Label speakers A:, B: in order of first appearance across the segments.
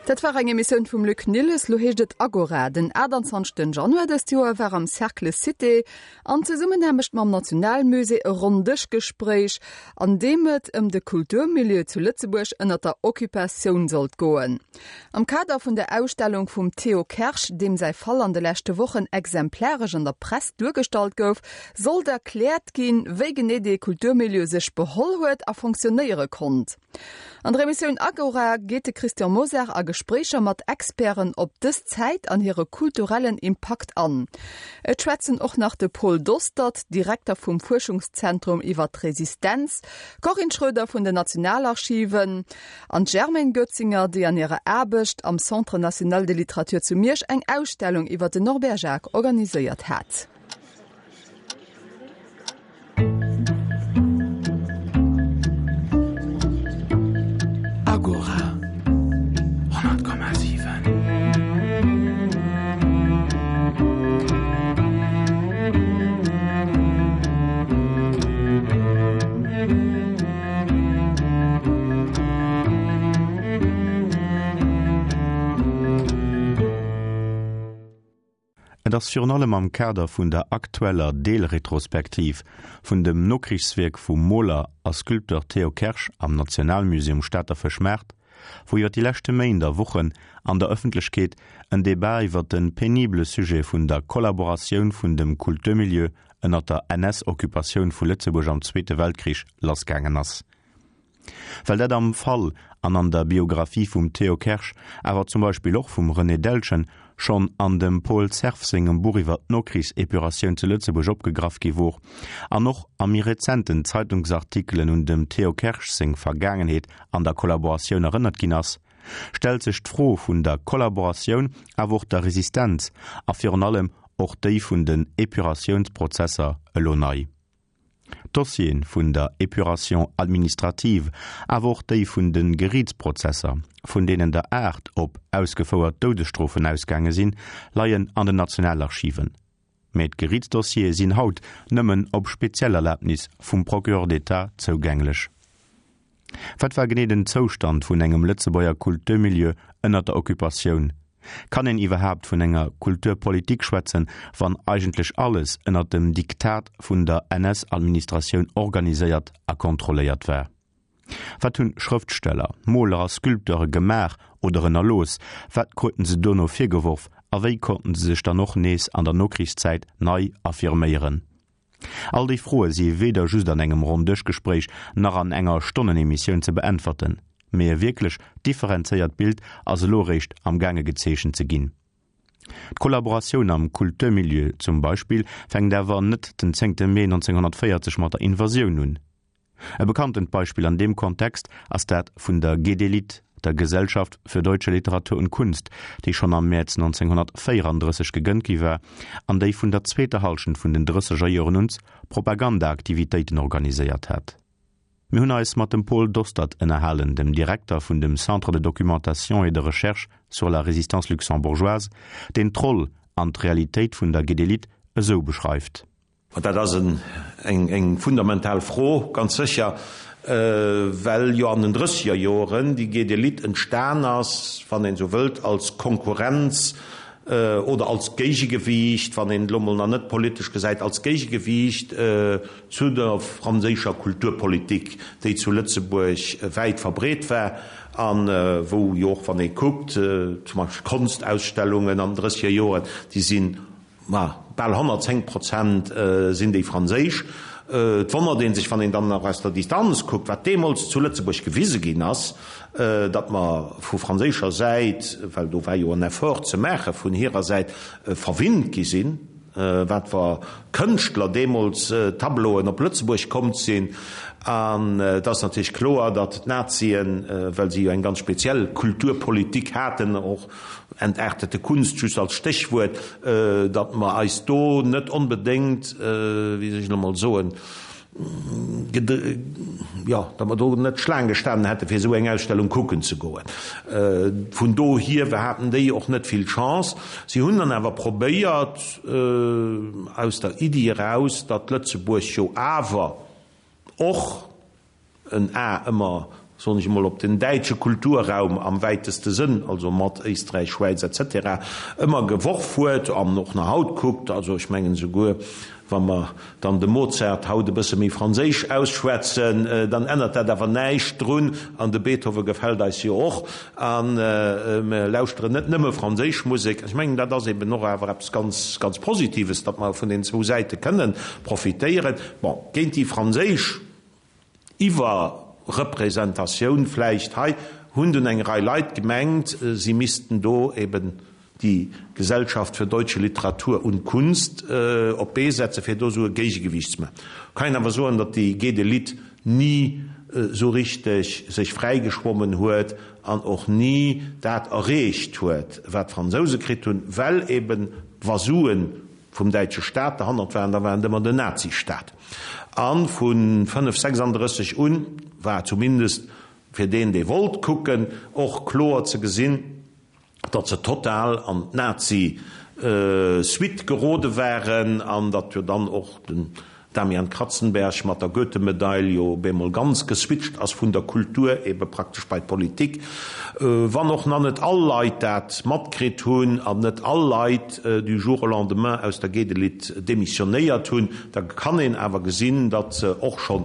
A: Dat war eng Emissioun vum Luc Nilles. Lo heescht et Agora. Den 28 Januar dëst Joer war am Cercle Cité an Zesummenaarbecht mam Nationalmusée e Ronndëschgespréich, an deem et ëm de Kulturmilieu zu Lëtzebuerg ënner der Occupatioun sollt goen. Am Kader vun der Ausstellung vum Théo Kersch, deem säi Fall an de leschte Wochen exemplaresch an der Press duergestallt gouf, sollt erkläert ginn, wéi genee dee Kulturmilieu sech beholl huet a fonctionnéiere konnt. An der Emissioun Agora geet de Christian Mosar a Gespréicher mat Experten op dës Zäit an hire kulturellen Impakt an. Et schwätzen och nach de Paul Dostert, Direkter vum Fuerschungszentrum iwwer d'Resistenz, d'Corinne Schroeder vun den Nationalarchiven an d'Germaine Goetzinger, déi an hirer Aarbecht am Centre national de littérature zu Miersch eng Ausstellung iwwer den Norbert Jacques organiséiert hat.
B: Agora, 100,7.
C: Et ass virun allem am Kader vun der aktueller Deelretrospektiv vun dem Nokrichswierk vum Moler a Sculpteur Théo Kersch am Nationalmusée um Stater Fëschmaart, wou iwwer déi leschte Méint a Wochen an der Ëffentlechkeet en Debat iwwer de penibele Sujet vun der Kollaboratioun vun dem Kulturmilieu ënner der NS-Occupatioun vu Lëtzebuerg am Zweete Weltkrich lassgaangen ass. Well dat am Fall an an der Biographie vum Théo Kersch, awer zum Beispill och vum René Deltgen, schonn an dem Paul Cerf sengem Buch iwwer d'Nokrichsepuratioun zu Lëtzebuerg opgegraff gi wor, an och a méi rezenten Zeitungsartikelen un dem Théo Kersch seng Vergaangenheet an der Kollaboratioun erënnert ginn ass, stellt sech d'Fro vun der Kollaboratioun, awer och der Resistenz a virun allem och déi vun den Epuratiounsprozesser elo nei. D'Dossiere vun der Épuration administrative, awer och déi vun de Geriitsprozesser, vun deenen der 8 op ausgefouert Doudesstrofen ausgaange sinn, leien an den Nationalarchiven. Mä d'Geriitsdossiere sinn haut nëmmen op speziell Erlabnis vum Procureur d'État zougänglech. Wat war genee den Zoustand vun engem Lëtzebuerger Kulturmilieu ënnert der Occupatioun? Kann een iwwerhaapt vun enger Kulturpolitik schwätzen, wann eigentlech alles ënnert dem Diktat vun der NS-Administratioun organiséiert a kontrolléiert war? Wat hunn Schrëftsteller, Moler a Sculpteure gemaach oder ënnerlooss? Wat kruten se dono virgeworf a wéi konnten se sech dann och nees an der Nokrichszäit nei affirméieren? All déi Froe si weder just an engem Ronndëschgespréich nach an enger Stonnenemissioun ze beäntwerten, mee e wierklech differenzéiert Bild ass elo eréischt am gaange gezeechent ze ginn. D'Kollaboratioun am Kulturmilieu zum Beispill fänkt awer net den zéngte Mee 1940 mat der Invasioun un. E bekanntent Beispill an deem Kontext ass dat vun der GDLit, der Gesellschaft für deutsche Literatur und Kunst, déi schonn am Mäerz 1934 gegrënnt gi war an déi vun der zweeter Hallschent vun den drësseger Joren un Propagandaaktivitéiten organiséiert hat. Mir hunn eis mat dem Paul Dostert ënnerhalen, dem Direkter vun dem Centre de documentation et de recherche sur la résistance luxembourgeoise, deen d'Roll an d'Realitéit vun der GDLit esou beschreift.
D: An dat ass eng fundamental Fro, ganz sécher, well jo an den drësseger Joren déi GD-Lit entstan ass, wann een esou wëllt, als Konkurrenz oder als Géigegewiicht, wann een et elo mol nach net politesch gesäit, als Géigegewiicht zu der franséischer Kulturpolitik, déi zu Lëtzebuerg wäit verbreet war a wou jo och, wann ee kuckt, zum Beispill d'Konstausstellungen an den drësseger Joren, déi sinn Ma bal 110 Prozent sinn déi franséisch. Et wonnert ee sech, wann een dann nach aus der Distanz kuckt, wat deemools zu Lëtzebuerg gewise ginn ass, datt mer vu franséischer Säit, well do war jo en Effort ze maache vun hirer Säit, verwinnt gi sinn, wat fer Kënschtler deemools Tableauen op Lëtzebuerg komm sinn. An et ass natierlech kloer, datt d'Nazien, well si jo eng ganz speziell Kulturpolitik haten, och Entartete Kunst just als Stéchwuert, datt mer eis do net onbedéngt, wéi soll ech elo mol soen, jo, datt mer do net Schlaang gestanen hätte fir esou eng Ausstellung kucken ze goen. Vun dohier haten déi och net vill Chance. Si hunn dann awer probéiert, aus der Iddi eraus, datt Lëtzebuerg jo awer och, en A ëmmer. Soen ech emol, op den däitsche Kulturraum am wäiteste Sënn, also mat Éisträich, Schwäiz etc. Ëmmer geworf huet an och nach haut kuckt. Also ech mengen esouguer, wa mer dann de Mozart haut e bësse méi franséisch ausschwätzen, dann ännert dat awer näischt drun, an de Beethoven gefält eis jo och, a mer lauschteren net nëmme franséisch Musek. Ech mengen, dat ass eben och awer eppes ganz, ganz Positives, datt mer vun den zwou Säite kënnen profitéieren. Bon, géint déi franséisch Iwwerrepresentatioun vläicht hei, hunn dunn eng Rei Leit gemengt, si missten do eben déi Gesellschaft für deutsche Literatur und Kunst op d'Bee setzen, fir do esou e Géigegewiicht ze maachen. Kann een awer soen, datt déi Gede-Lit ni esou richteg sech fräigeschwommen huet an och ni dat erreecht huet, wat d'Fransouse kritt hunn, well eben wa Suen vum däitsche Staat derhannert waren, da war et ëmmer den Nazistaat. A vu 5, 36 un war zumindest fir deen, dee wollt kucken, och kloer ze gesinn, datt se total an d'Nazi-Suite gerode waren an datt jo dann och den Damian Kratzenberg mat der Goethe-Medail jo op eemol ganz geswitcht ass vun der Kultur ebe praktesch bei d'Politik. Wann och nach net all Leit dat matkritt hunn an net all Leit du jour au lendemain aus der Gedelit demissionéiert hunn, da kann een awer gesinn, datt se och schonn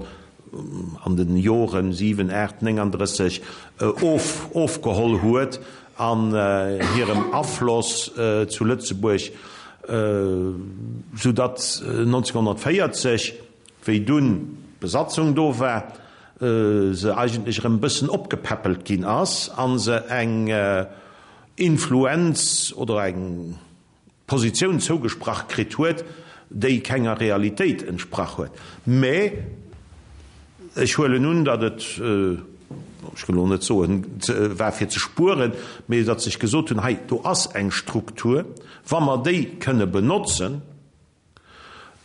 D: an de Joren 7, 8, 39 of ofgeholl huet an hirem Afloss zu Lëtzebuerg, sou datt 1940, wéi dunn d'Besatzung do war, se eigentlech erëm e bëssen opgepäppelt ginn ass a se eng Influenz oder eng Positioun zougesprach kritt huet, déi kenger Realitéit entsprach huet. Mä ech huelen un, datt et, ech wëll elo net soen, war fir ze spueren, mä datt sech gesot hunn, hei do ass eng Struktur, wa mer déi kënne benotzen,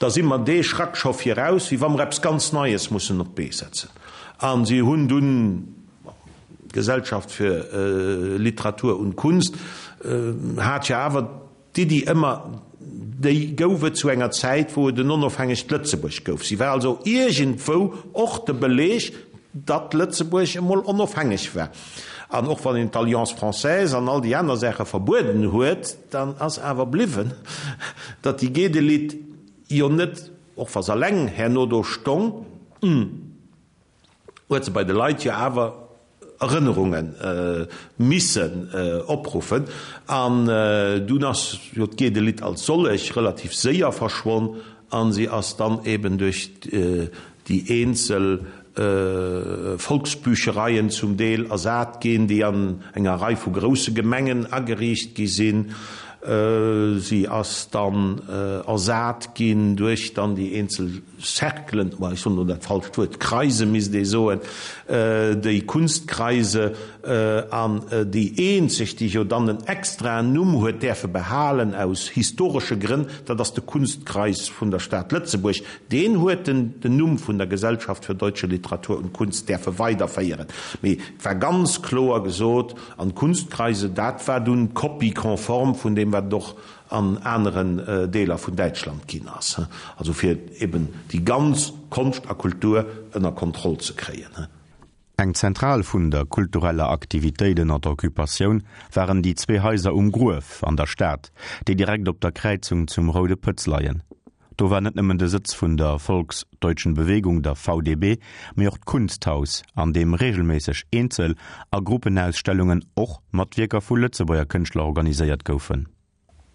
D: da si mer dee Schrack scho viraus, wéi wa mer eppes ganz Neies mussen op d'Bee setzen. A si hunn dunn, d'Gesellschaft für Literatur und Kunst hat jo awer d'Iddi ëmmer, déi gouf et zu enger Zäit, wou et en onofhängegt Lëtzebuerg gouf. Si war also iergendwou och de Beleg, datt Lëtzebuerg emol onofhängeg war. An och wann een d'Alliance française an all déi aner Saache verbueden huet, dann ass awer bliwwen, datt déi Gedelit jo net, och wa se alleng herno do stong, huet se bei de Leit jo awer Erënnerunge missen opruffen. An dunn ass jo d'Gedelit als sollech relativ séier verschwonn a si ass dann eben duerch déi eenzel Volksbüchereien zum Deel ersat ginn, déi an enger Rei vu grousse Gemengen ageriicht gi sinn. Si ass dann ersat ginn duerch dann déi eenzel Cerclen, ma ech soen elo dat falscht Wuert, Kreise misst ee soen, déi Kunstkreise, an déi eenzeg, déi jo dann en extraen Numm huet däerfe behalen aus historesche Grënn, dat ass de Kunstkreis vun der Stad Lëtzebuerg. Deen huet den den Numm vun der Gesellschaft für deutsche Literatur und Kunst däerfe weiderféieren. Mee et war ganz kloer gesot, an d'Kunstkreise, dat war dunn d'Copie conforme vun deem, wat et och an aneren Deeler vun Däitschland ginn ass, also fir eben déi ganz Konscht a Kultur ënner Kontroll ze kréien.
C: Eng Zentral vun der kultureller Aktivitéit ënner der Occupatioun waren déi zwee Haiser um Gruef an der Stad, déi direkt op der Kräizung zum Roude Pëtz leien. Do war net nëmmen de Sëtz vun der Volksdeutschen Bewegung, der VDB, mee och d'Kunsthaus, an deem reegelméisseg Eenzel a Gruppenausstellungen, och mat Wierker vu Lëtzebuerger Kënschtler, organiséiert goufen.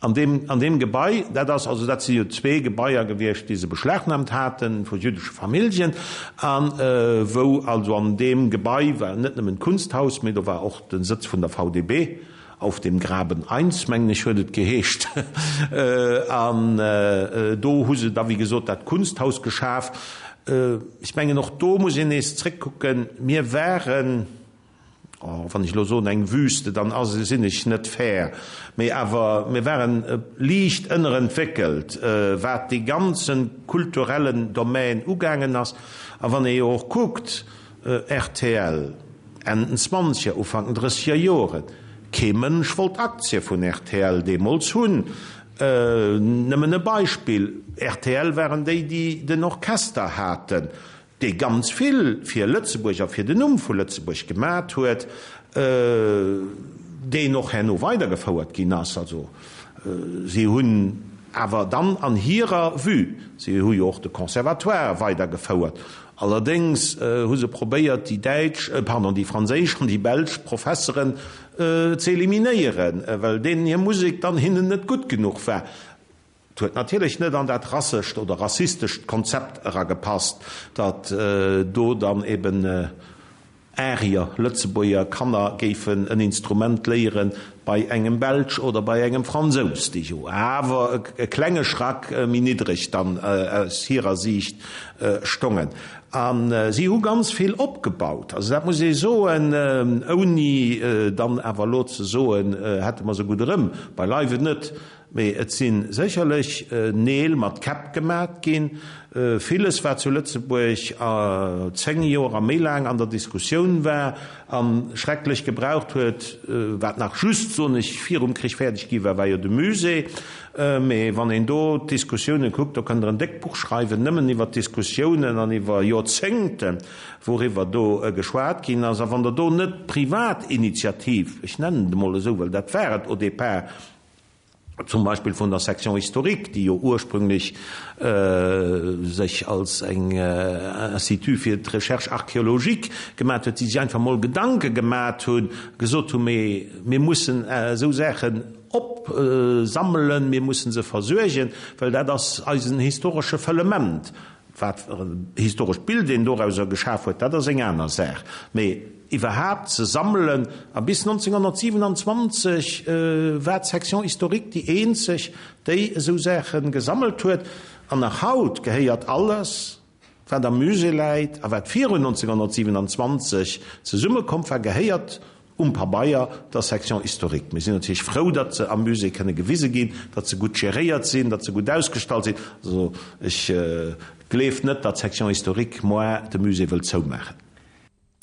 D: An deem, an deem Gebai, dat ass, also dat si jo zwee Gebaier gewiescht, déi se beschlagnahmt haten vu jüddesche Familljen, a wou also an deem Gebai war net nëmmen d'Kunsthaus, mee do war och de Sëtz vun der VDB, Auf dem Graben 1, mengen ech, huet et geheescht. An do hu se da, wéi gesot, dat Kunsthaus geschaf. Ech mengen, och do muss een nees zréckkucken. Mir waren, oh, wann ech elo soen eng Wüste, dann ass, sinn ech net fair, mee awer mir waren liicht ënnerentwéckelt, wat dee ganze kulturellen Domän ugaangen ass. A wann ee jo och kuckt, Rtl, Enn den Zwanzeger, Ufank den Drësseger Joren, kee Mënsch wollt Aktie vun rtl deemools hunn. Nëmmen e Beispill, rtl waren déi, déi den Orchester haten. Dee ganz vill fir Lëtzebuerg a fir den Numm vu Lëtzebuerg gemat huet, deen och herno weidergefouert ginn ass. Also si hunn awer dann an hirer Vue, si hu jo och de Conservatoire weidergefouert, allerdéngs hu se probéiert déi däitsch, pardon, déi franséisch an déi belsch Professeren ze eliminéieren, well deenen hir Musek dann hinnen net gutt genuch war. Et huet natierlech net an dat rassescht oder rassistescht Konzept eragepasst, datt do dann eben Arier, Lëtzebuerger Kanner géifen en Instrument léiere bei engem Belsch oder bei engem Fransous, déi jo awer e klenge Schrack méi niddreg dann aus hirer Siicht stongen. A si hu ganz vill opgebaut, also dat muss ee soen, ouni dann awer elo ze soen, hätte mer se gutt erëm, beileiwen net. Mee et si sécherlech Neel mat Käpp gemat ginn. Villes, wat zu Lëtzebuerg 10 Joer a méi laang an der Diskussioun war a schrecklech gebraucht huet, wat nach just, soen ech, virum Krich fäerdeg gi war, war jo de Musée. Mee wann een do d'Diskussioune kuckt, do kënnt Der en déckt Buch schreiwen, nëmmen iwwer d'Diskussiounen an iwwer Joerzéngten, wouriwwer do geschwat ginn ass. A wann Der do net d'Privatinitiativ, ech nennen et emol esou, well dat war et au départ, zum Beispill vun der Section historique, déi jo ursprünglech sech als eng Institut fir d'Recherche archéologique gemat huet, déi sech einfach mol Gedanke gemat hunn, gesot hunn, mee mir mussen esou Saachen opsammelen, mir mussen se versuergen, well dat ass eisen historesche Fëllement. Wat fir en historescht Bild een dorauser geschaf huet, dat ass eng aner Saach. Mee iwwerhaapt ze sammelen, a bis 1927 war d'Section historique déi eenzeg, déi esou Saache gesammelt huet. An nach haut gehéiert alles, wat am Musée läit a wat virun 1927 zesummekomm war, gehéiert um Pabeier der Section historique. Mir sinn natierlech frou, datt se am Musée kënne gewise ginn, datt se gutt geréiert sinn, datt se gutt ausgestallt sinn. Also ech gleef net, datt d'Section historique moar de Musée wëllt zoumaachen.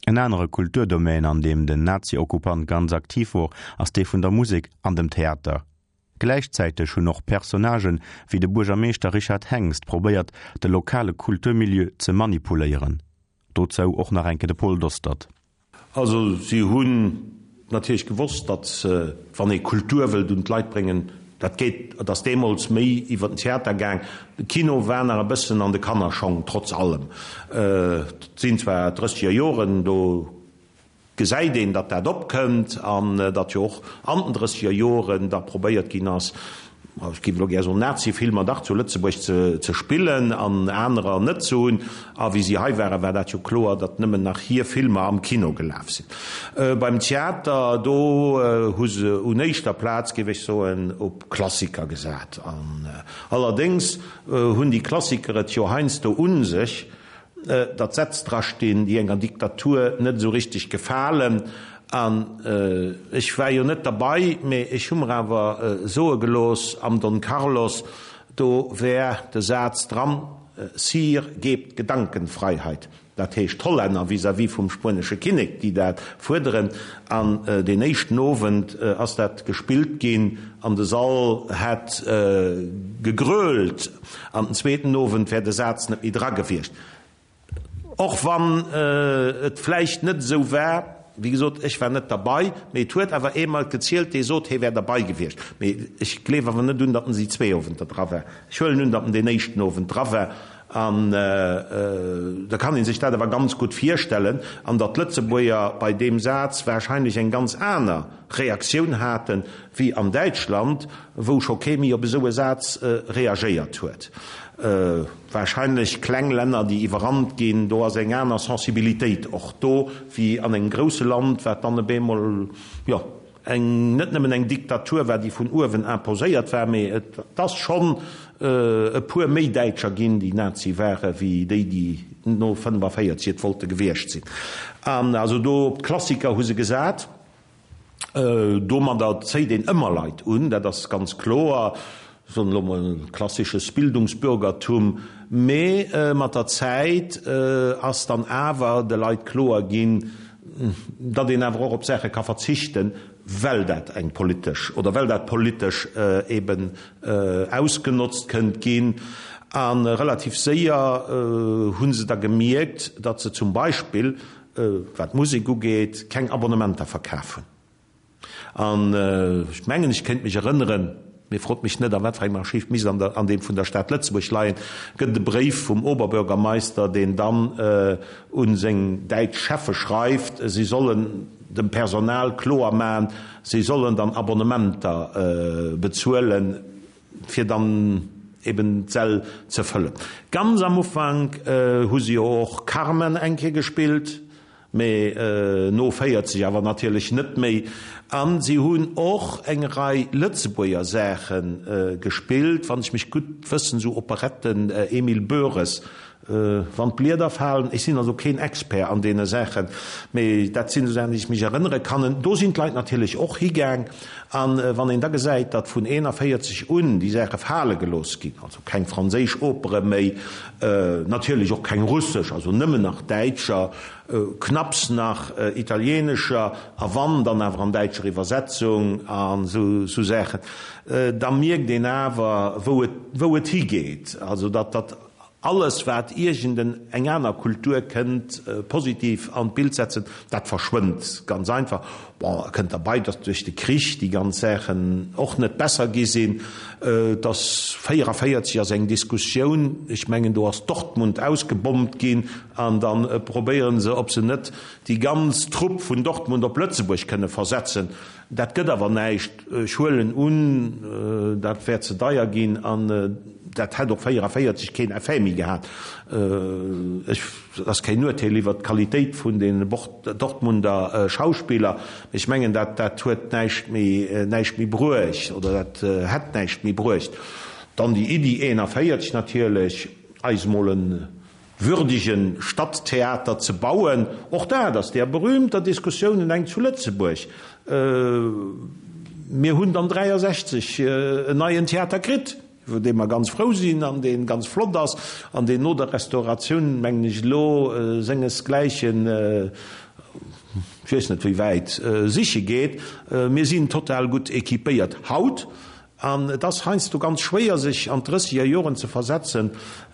C: En anere Kulturdomaine, an deem den Nazi-Okkupant ganz aktiv wor, ass dee vun der Musek an dem Theater. Gläichzäiteg hunn och Personnagen wéi de Buergermeeschter Richard Hengst probéiert, de lokale Kulturmilieu ze manipuléieren. Dozou och nach eng Kéier de Paul Dostert.
D: Also si hunn natierlech gewosst, datt wann ee Kultur wëllt un d'Leit bréngen, dat geet, et ass deemools méi iwwer den Theater gaang, de Kino war nach e bëssen an de Kannerschong, trotz allem. Et sinn zwar drësseger Joren, do gesäit een, datt dat opkënnt an datt jo och an den drësseger Joren da probéiert ginn ass, ech géif elo gär soen, Nazi-Filmer dach zu Lëtzebuerg ze spillen an anerer net ze hunn. A wéi si hei waren, war dat jo kloer, datt nëmmen nach hir Filmer am Kino gelaf sinn. Beim Theater, do hu se un éischter Plaz, géif ech soen, op Klassiker gesat. An allerdéngs hunn déi Klassiker et jo heiansdo u sech, datt Sätz drastinn, déi enger Diktatur net esou richteg gefalen. An ech war jo net derbei, mee ech hu mer awer soe gelooss, am Don Carlos, do wär de Saz dran, Sire, gebt Gedankenfreiheit. Dat heescht d'Hollänner vis-à-vis vum spuenesche Kinnek, déi dat fuerderen. An deen éischten Owend ass dat gespillt ginn an de Sall hätt gegrölt. An den zweeten Owend wär de Saz net méi dra gewiescht. Och wann et vläicht net esou war, wéi gesot, ech war net derbei, mee et huet awer ee mer et gezielt, dee sot, hee wär derbei gewiescht. Mee ech gleef awer net un, datt en déi zwee Owenter dra war. Ech huelen un, datt en deen éischten Owend dra war. An da kann ee sech dat awer ganz gutt virstellen, an datt d'Lëtzebuerger bei deem Saz wahrscheinlech eng ganz aner Reaktioun hate wéi an Däitschland, wou scho kee méi op esou e Saz reagéiert huet. Wahrscheinlech kleng Länner, déi iwwerrannt ginn, do ass eng aner Sensibilitéit och do wéi an engem grousse Land, wat dann op eemol, jo, eng, net nëmmen eng Diktatur war, déi vun uewen imposéiert war, mee et ass schonn e puer méi Däitscher ginn, déi Nazi ware wéi déi, déi no 45 et wollte gewiescht sinn. An also do op d'Klassiker hu se gesat. Domadder zéit een ëmmer Leit un, dat ass ganz kloer, soen elo mol klassisches Bildungsbürgertum. Mee mat der Zäit ass dann awer de Leit kloer ginn, datt een awer och op Saache ka verzichten, well dat eng politesch oder well dat politesch eben ausgenotzt kënnt ginn. A relativ séier hu se da gemierkt, datt se zum Beispill, wat d'Musek ugeet, keng Abonnementer verkaf hunn. An ech mengen, ech kéint mech erënneren, mee frot mech net, a wat fir engem Archiv, misst an der, an deem vun der Stad Lëtzebuerg leien, gëtt et e Bréif vum Oberbürgermeister, deen dann u seng däitsch Cheffe schreift, si sollen dem Personal kloer maachen, si sollen dann Abonnementer bezuelen, fir dann eben d'Säll ze fëllen. Ganz am Ufank hu se jo och Carmen eng Kéier gespillt. Mee no 40 awer natierlech net méi. A si hunn och eng Rei Lëtzebuerger Saache gespillt, wann ech mech gutt wëssen, esou Operetten, Emil Boeres, Wann d'Blieder falen. Ech sinn also keen Expert an deene Saachen, mee dat sinn esou Saachen, déi ech mech erënnere kann. Do sinn d'Leit natierlech och higaang. A wann een da gesäit, datt vun 41 un déi Saache fale gelooss ginn, also keng franséisch Opere méi, Natierlech och keng russesch, also nëmmen nach däitscher, knapps nach italienescher, a wann, dann awer an däitscher Iwwersetzung an esou Saachen. Da mierkt een awer, wou et, wou et higeet. Also datt, datt alles, wat iergend eng aner Kultur kënnt positiv an d'Bild setzen, dat verschwënnt ganz einfach. Bon, et kënnt derbei, datt duerch de Krich déi ganz Saachen och net besser gi sinn. Et ass 44 ass eng Diskussioun, ech mengen do ass Dortmund ausgebommt ginn an da probéiere se, ob se net déi ganz Trupp vun Dortmund op Lëtzebuerg kënne versetzen. Dat gëtt awer näischt. Ech huelen un, dat wäert ze deier ginn an dat hätt och 44 keen Effet méi gehat. Ech. Et ass keen Urteel iwwert d'Qualitéit vun den Dortmunder Schauspiller, mee ech mengen, dat dat huet näischt méi näischt méi bruecht oder dat hätt näischt méi bruecht. Dann déi Iddi 41 natierlech, eis emol e würdege Stadttheater ze bauen, och dat ass där berühmter Diskussiounen eng zu Lëtzebuerg. Mir hunn dann 63 en neien Theater kritt. iwwer dee mer ganz frou sinn an dee ganz flott ass an deen no der Restauratioun, mengen ech, elo sengesgläichen, ech weess net wéi wäit, siche geet. Mir sinn total gutt équipéiert haut an et ass heiansdo ganz schwéier, sech an d'drësseger Joren ze versetzen,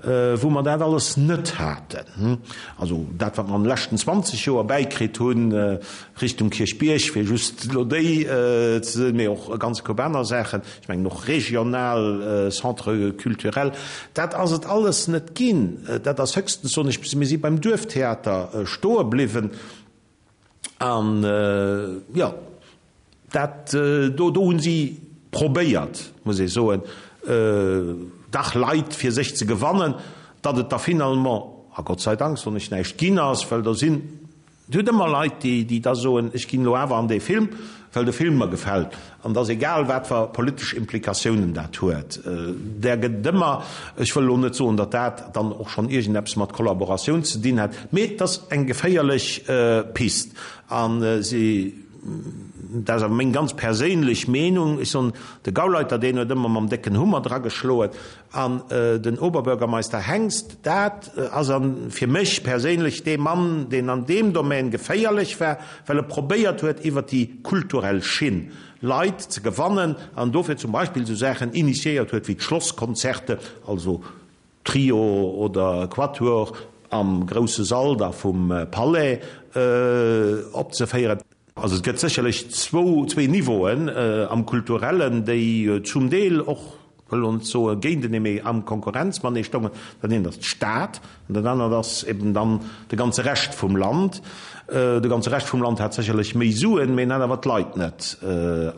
D: wou mer dat alles net haten. Also dat, wat mer an de leschten 20 Joer bäikritt hunn, Richtung Kierchbierg, fir just elo déi ze soen, mee och e ganze Koup aner Saachen, ech mengen och regional Centres culturels, dat ass et alles net ginn. Dat ass höchstens, soen ech, mir si beim Duerftheater stoe bliwwen an, jo, dat do, do hu si probéiert, muss ee soen, dach Leit fir sech ze gewannen, datt et da finalement, a Gott sei Dank, soen ech, näischt ginn ass, well do sinn, Et huet ëmmer Leit, déi da soen, ech ginn elo awer an dee Film, well de Film mer gefält. An et ass egal, wat fer politesch Implikatiounen dat huet. Där gëtt et ëmmer. Ech wëll elo net soen, datt dat dann och schonn iergendeppes mat Kollaboratioun ze dinn hätt, mee et ass eng geféierlech Pist. A si, dat ass awer meng ganz perséinlech Meenung, ech soen, de Gauleiter, deen huet ëmmer mam décken Hummer drageschloen. An den Oberbürgermeister Hengst, dat ass an fir mech perséinlech dee Mann, deen an deem Domän geféierlech war, well e probéiert huet, iwwert déi kulturell Schinn Leit ze gewannen an dofir zum Beispill esou Saachen initiéiert huet wéi d'Schlosskonzerte, also Trio oder Quatuor am grousse Sall da vum Palais opzeféieren. Also et gëtt sécherlech zwou, zwee Niveauen am Kulturellen, déi zum Deel och, wëll elo net soe géintenee, mee am Konkurrenz matenee stoungen. Dat eent ass d'Stad an dat anert ass eben dann de ganze Rescht vum Land. De ganze Rescht vum Land hat sécherlech méi Suen, mee en hat awer d'Leit net.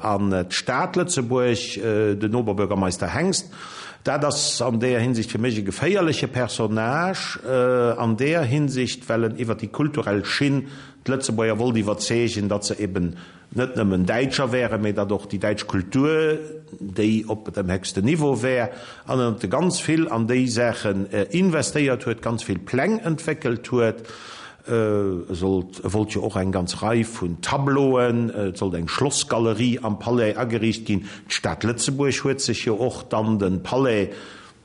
D: An d'Stad Lëtzebuerg, den Oberbürgermeister Hengst, dat ass an deeër Hinsicht fir mech e geféierleche Personnage an deeër Hinsicht, well en iwwer déi kulturell Schinn D'Lëtzebuerger wollt iwwerzeegen, datt se eben net nëmmen Däitscher wären, mee datt och déi däitsch Kultur déi op dem héchsten Niveau wär, an datt e ganz vill an déi Saachen investéiert huet, ganz vill Pläng entwéckelt huet. E sollt, e wollt jo och eng ganz Rei vun Tableauen, et sollt eng Schlossgalerie am Palais ageriicht ginn. D'Stad Lëtzebuerg huet sech jo och dann de Palais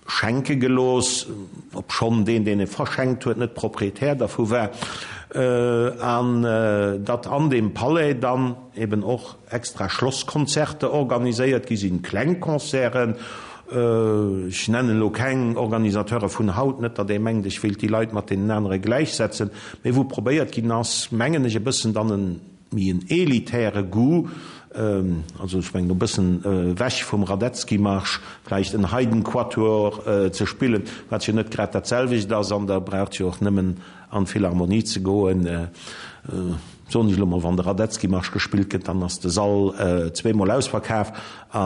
D: Schenke gelooss, obschonn deen, deen e verschenkt huet, net Proprietär dervu war, an datt an deem Palais dann eben och extra Schlosskonzerte organiséiert gi sinn, kleng Concerten. Ech nennen elo keng Organisateure vun haut, net datt ee mengt, ech wéilt déi Leit mat deenen anere gläichsetzen, mee wou probéiert ginn ass, mengen ech, e bëssen dann en méi en elitäre Goût, also ech mengen e bëssen ewech vum Radetzky-Marsch, vläicht en Haydn-Quatuor ze spillen, wat jo net grad dat selwecht ass, an da braucht jo och nëmmen an d'Philharmonie ze goen, soen ech elo mol, wann de Radetzky-Marsch gespillt gëtt, dann ass de Sall zweemol ausverkaf, a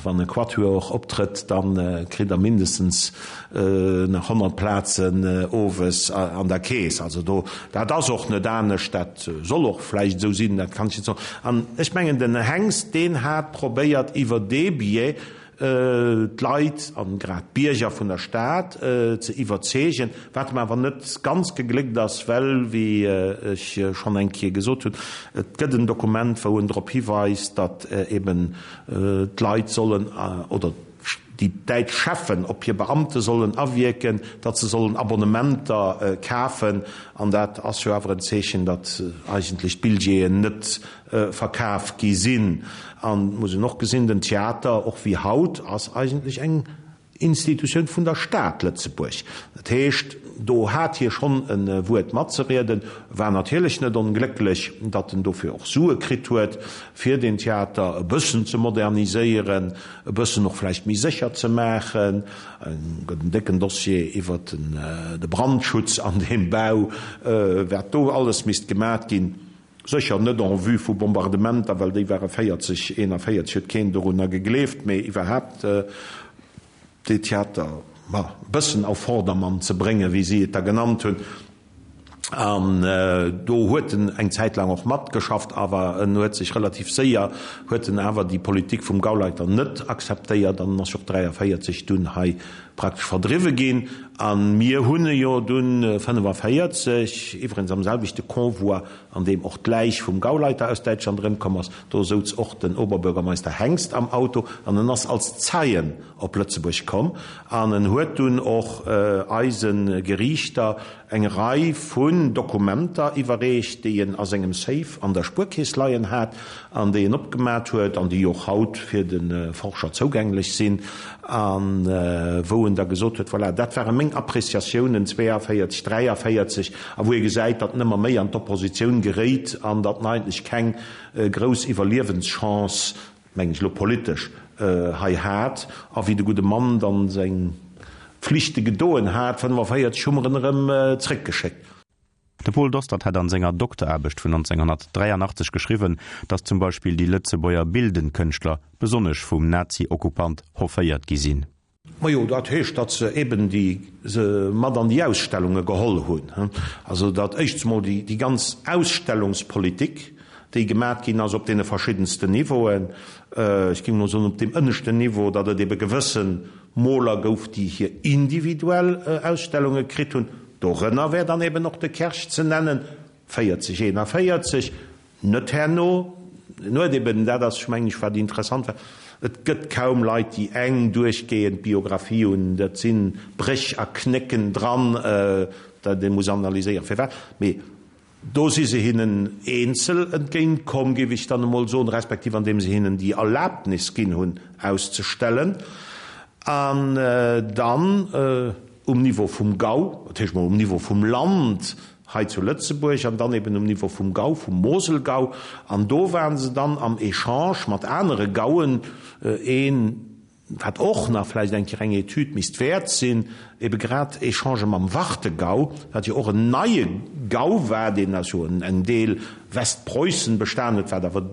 D: wann e Quatuor optrëtt, da kritt der mindestens nach 100 Plazen owes an der Keess. Also do, dat ass och net anescht, dat soll och vläicht esou sinn, dat kann ech net soen. An ech mengen, den Hengst, deen hat probéiert iwwer dee Biais d'Leit, an grad d'Bierger vun der Stad, ze iwwerzeegen, wat em awer net ganz gegléckt ass, well, wéi ech schonn eng Kéier gesot hunn, et gëtt en Dokument, wou en drop hiweist, datt eben d'Leit sollen, oder déi däitsch Cheffen op hir Beamte sollen awierken, datt se sollen Abonnementer kafen. An dat ass jo awer en Zeechen, datt eigentlech d'Billjeeën net verkaf gi sinn. An et muss een och gesinn, den Theater, och wéi haut, ass eigentlech eng Institutioun vun der Stad Lëtzebuerg. Dat heescht, do hat hie schonn e Wuert matzerieden, war natierlech net onglécklech, datt en dofir och Sue kritt huet, fir deen Theater e bëssen ze moderniséieren, e bëssen och vläicht méi sécher ze maachen. Et gëtt en décken Dossier iwwer de Brandschutz an deem Bau, wat do alles misst gemat ginn. Sécher net en vue vu Bombardementer, well déi ware 40, 41 huet keen dorunner gegleeft, mee iwwerhaapt dee Theater, ma, e bëssen auf Vordermann ze bréngen, wéi si et da genannt hunn. An do huet en eng Zäit laang och matgeschafft, awer en huet sech relativ séier, huet en awer déi Politik vum Gauleiter net akzeptéiert an en ass jo och 43 dunn hei praktesch verdriwwe ginn. A mir hunn e jo dunn 45, iwwregens am selwechte Convoi, an deem och d'Läich vum Gauleiter aus Däitschland erëmkomm ass, do souz och den Oberbürgermeister Hengst am Auto an en ass als Zeien op Lëtzebuerg komm an en huet dunn och eise Geriichter eng Rei vun Dokumenter iwwerreecht, déi en a sengem Safe an der Spuerkeess leien hat an déi en opgemat huet an déi och haut fir de Forscher zougänglech sinn, a wou en da gesot huet, Voilà, dat ware meng Appréciatiounen 42, 43, a wou ee gesäit, datt en ëmmer méi an d'Oppositioun geréit an datt en eigentlech keng grouss Iwwerliewenschance, mengen ech elo politesch, hei hat. A wéi de gudde Mann dann seng Flichte gedoen hat, 45, hu mer en erëm zréckgeschéckt.
C: De Paul Dostert hat an senger Dokteraarbecht vun 1983 geschriwwen, datt zum Beispill déi Lëtzebuerger bildend Kënschtler besonnesch vum Nazi-Okkupant hofféiert gi sinn.
D: Majo, dat heescht, datt se eben déi se mat an déi Ausstellunge geholl hunn. Also datt éischts emol déi déi ganz Ausstellungspolitik, déi gemat ginn ass op deene verschiddensten Niveauen, ech géing emol soen op deem ënneschten Niveau, datt et ebe gewësse Moler gouf, déi hir individuell Ausstellunge kritt hunn, dorënner wär dann eben och de Kersch ze nennen, 40, 41, net herno, en huet eben, dat ass mengen ech wat interessant war, et gëtt kaum Leit, déi eng duerchgehend Biographie hunn, dat si Bréch a Knécken dran, dat ee muss analyséieren, firwat, mee Do si se hinnen eenzel entgéint komm, géif ech dann emol soen, respektiv andeem se hinnen déi Erlaabnis ginn hunn, auszestellen. An dann um Niveau vum Gau, dat heescht mol um Niveau vum Land hei zu Lëtzebuerg an dann eben um Niveau vum Gau, vum Moselgau. An do ware se dann am Echange mat anere Gauen, een, Wat och nach vläicht eng Kéier eng Etüd misst wäert sinn, ebe grad Echangë mam Warthegau, wat jo och en neie Gau war, deen aus jo engem Deel Westpreussen bestan huet, wat awer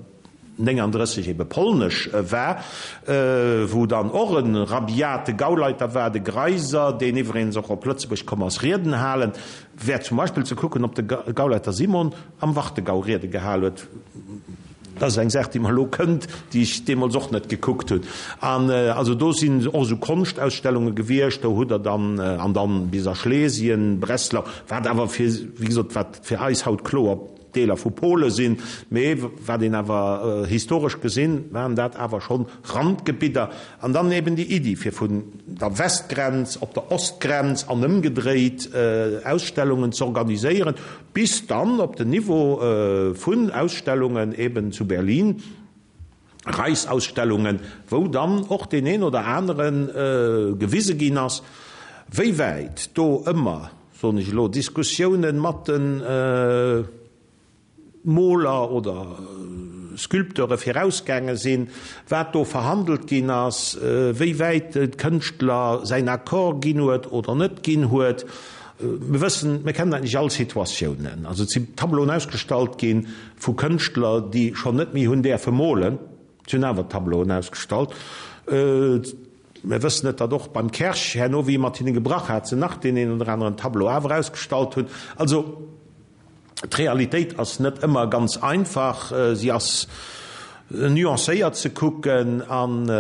D: 39 ebe polnesch war, wou dann och e rabiate Gauleiter war, de Greiser, deen iwweregens och op Lëtzebuerg komm ass Rieden halen. Wär zum Beispill ze kucken, ob de Gauleiter Simon am Warthegau Riede gehal huet. Dat ass eng Saach, déi mer elo kënnt, déi ech deemools och net gekuckt hunn. An also do sinn och esou Konschtausstellunge gewiescht, do hutt Der dann, an dann bis a Schlesien, Breslau, wat awer fir, wéi gesot, wat fir eis haut kloer Deeler vu Pole sinn, mee wat een awer historesch gesinn, waren dat awer schonn Randgebidder. An dann eben déi Iddi, fir vun der Westgrenz op der Ostgrenz an ëmgedréit Ausstellungen z'organiséieren, bis dann op den Niveau vun Ausstellungen eben zu Berlin. Reichsausstellungen, wou dann och deen een oder anere gewise ginn ass, wéi wäit do ëmmer, soen ech elo, Diskussiounen mat de Moler oder Sculpteure virausgaange sinn, wat do verhandelt ginn ass, wéi wäit de Kënschtler säin Accord ginn huet oder net ginn huet. Mir wëssen, mir kennen eigentlech all Situatiounen. Also et si Tableauen ausgestallt gi vu Kënschtler, déi schonn net méi hunn däerfe molen. Si hunn awer Tableauen ausgestallt. Mir wëssen et, datt och beim Kersch, herno wéi e mat hinne gebrach hat, se nach deen een oder aneren Tableau awer ausgestallt hunn. Also d'Realitéit ass net ëmmer ganz einfach. Si ass nuancéiert ze kucken an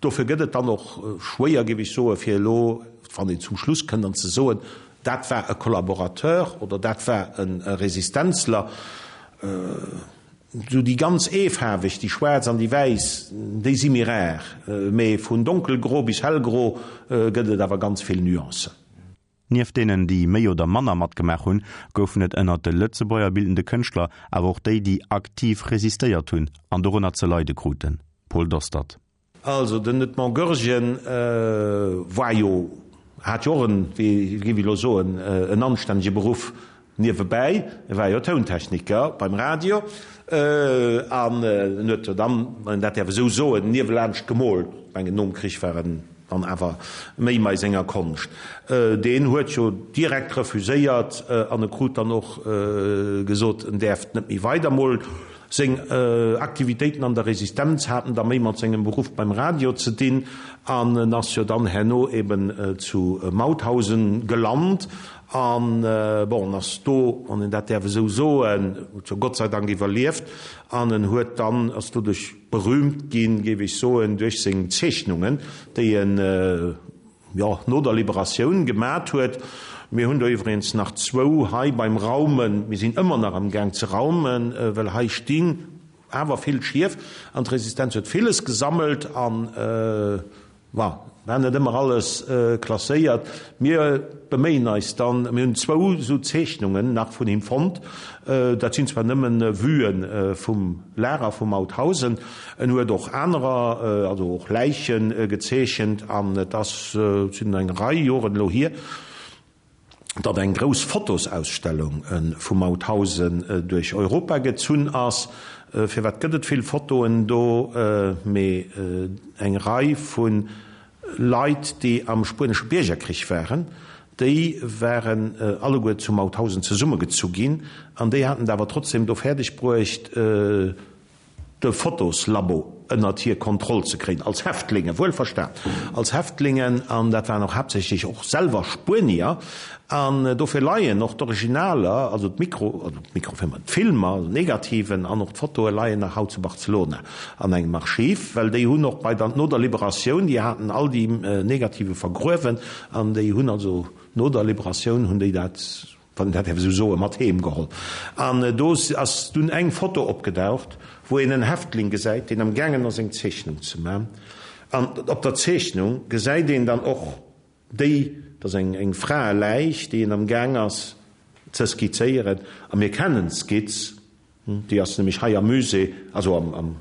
D: Dofir gëtt et dann och schwéier, géif ech soen, fir elo, wann een zum Schluss kënnt, an ze soen, dat war e Collaborateur oder dat war e Resistenzler. Esou déi ganz eefaarweg, déi schwaarz an déi wäiss, déi si méi rar, mee vun donkelgro bis hellgro gëtt et awer ganz vill Nuancen.
C: Nieft deenen, déi méi oder manner matgemaach hunn, goufen et ënnert de Lëtzebuerger bildende Kënschtler awer och déi, déi aktiv resistéiert hunn an dorënner ze leide kruten. Paul Dostert.
D: Also den Edmond Goergen war jo, hat jo och en, wéi géif ech elo soen, en anstännege Beruff niewebäi. E war jo Tountechniker beim Radio an en huet jo dann, wann een dat däerf esou soen, niewelaanscht gemoolt. Ech mengen, nom Krich war en dann awer méi mei senger Konscht. Deen huet jo direkt refuséiert an e krut dann och gesot, en däerft net méi weider molen. Seng Aktivitéiten an der Resistenz haten da méi mat sengem Beruff beim Radio ze dinn an en ass jo dann herno eben zu Mauthausen gelant an, bon, en ass do, wann een dat däerf esou soen, huet jo Gott sei Dank iwwerlieft an en huet dann, ass doduerch berühmt ginn, géif ech soen, duerch seng Zeechnungen, déi en, jo, no der Liberatioun gemat huet. Mir hunn do iwwregens nach zwou hei beim Raumen. Mir sinn ëmmer nach am Gaang ze raumen, well hei stinn awer vill Schief an d'Resistenz huet villes gesammelt an, bon, war net ëmmer alles klasséiert. Mir beméien eis dann, mir hunn zwou esou Zeechnungen nach vun him fonnt, dat sinn zwar nëmmen Vuen vum Lager vu Mauthausen, en huet och anerer, also och Läiche gezeechent an et ass, et sinn eng Rei Joren elo hier, datt eng grouss Fotosausstellung vu Mauthausen duerch Europa gezunn ass. Firwat gëtt et vill Fotoen do? Mee eng Rei vu Leit, déi am Spuenesche Biergerkrich waren, déi waren alleguer zu Mauthausen zesummegezu ginn an déi haten et awer trotzdem do fäerdeg bruecht, de Fotoslabo ënnert hir Kontroll ze kréien, als Häftlinge, wuelverstan, als Häftlingen, an dat waren och haaptsächlech och selwer Spuenier, an dofir leien och d'Originaler, also d'Mikro, also d'Mikrofilmer, d'Filmer, also d'Negativen an och d'Fotoe leien nach haut zu Barcelona an engem Archiv, well déi hunn och bei der, no der Liberatioun, déi haten all déi Negative vergruewen an déi hunn also no der Liberatioun hunn déi dat, wann een dat däerf esou soen, mat heem geholl. An do ass dunn eng Foto opgedaucht, wou een en Häftling gesäit, deen am gaangen ass eng Zeechnung ze man. An op der Zeechnung gesäit een dann och déi, dat ass eng eng Fraeläich, déi en am gaang ass ze skizzéieren. A mir kennen d'Skizz, Déi ass nämlech hei am Musée, also am, am,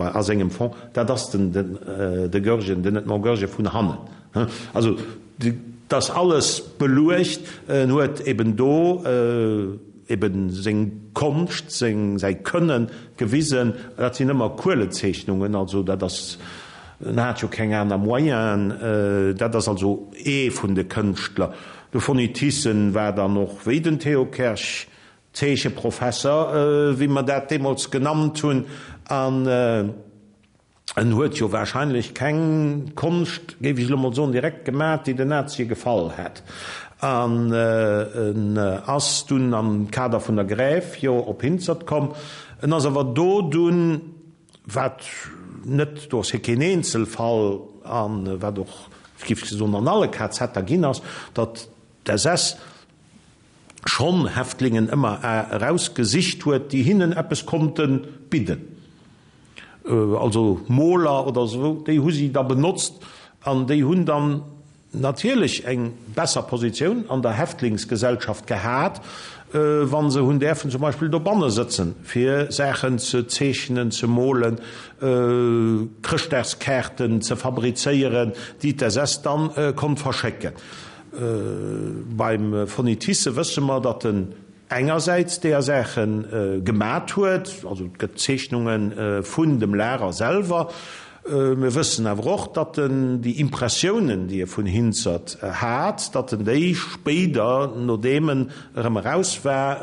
D: a sengem Fond. Dat ass den, den, de Goergen, den Edmond Goergen vun hannen. Also, dat ass alles beluecht. En huet eben do eben seng Konscht, seng, säi Kënnen gewisen. Dat sinn ëmmer Kuelezeechnungen, also dat ass, en hat jo keng aner Moyenen. Dat ass also ee vun de Kënschtler. De Fonny Thyssen war dann och, wéi den Theo Kersch, Zeecheprofesser, wéi mer dat deemools genannt hunn, an en huet jo wahrscheinlech keng Konscht, géif ech elo mol soen, direkt gemat, déi den Nazie gefall hätt. An en ass dunn am Kader vun der Grève jo op Hinzert komm. En ass awer do dunn, wat net, do ass hie keen Eenzelfall, a wat och, géif ech soen, an alle KZer ginn ass, datt d'SS schonn Häftlingen ëmmer erausgesicht huet, déi hinnen eppes konnte bidden, also Moler oder esou, déi hu si da benotzt an déi hunn dann. natierlech eng besser Positioun an der Häftlingsgesellschaft gehat, wa se hunn däerfen zum Beispill dobanne sëtzen, fir Saachen ze zeechnen, ze molen, Chrëschtdagskaarten ze fabrizéieren, déi d'SS dann konnt verschécken. Beim Fonny Thyssen wësse mer, datt en engersäits deeër Saache gemat huet, also et gëtt Zeechnunge vun dem Lager selwer. Mir wëssen awer och, datt en déi Impressiounen, déi e vun Hinzert hat, datt en déi spéider, nodeem en erëm eraus war,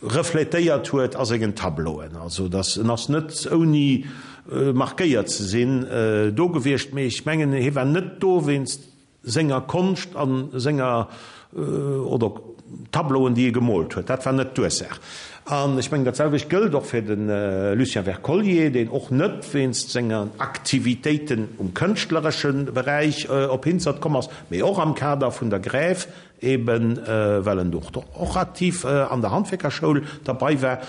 D: refletéiert huet a sengen Tableauen. Also datt en ass net ouni markéiert ze sinn do gewiescht, mee ech mengen, hie war net do wéinst senger Konscht a senger, oder Tableauen, déi e gemoolt huet. Dat war net d'Ursaach. An ech mengen, dat selwecht gëllt och fir de Lucien Wercollier, deen och net wéinst sengen Aktivitéiten um kënschtleresche Beräich op Hinzert komm ass, mee och am Kader vun der Grève, eben well en do och aktiv an der Handwierkerschoul derbei war,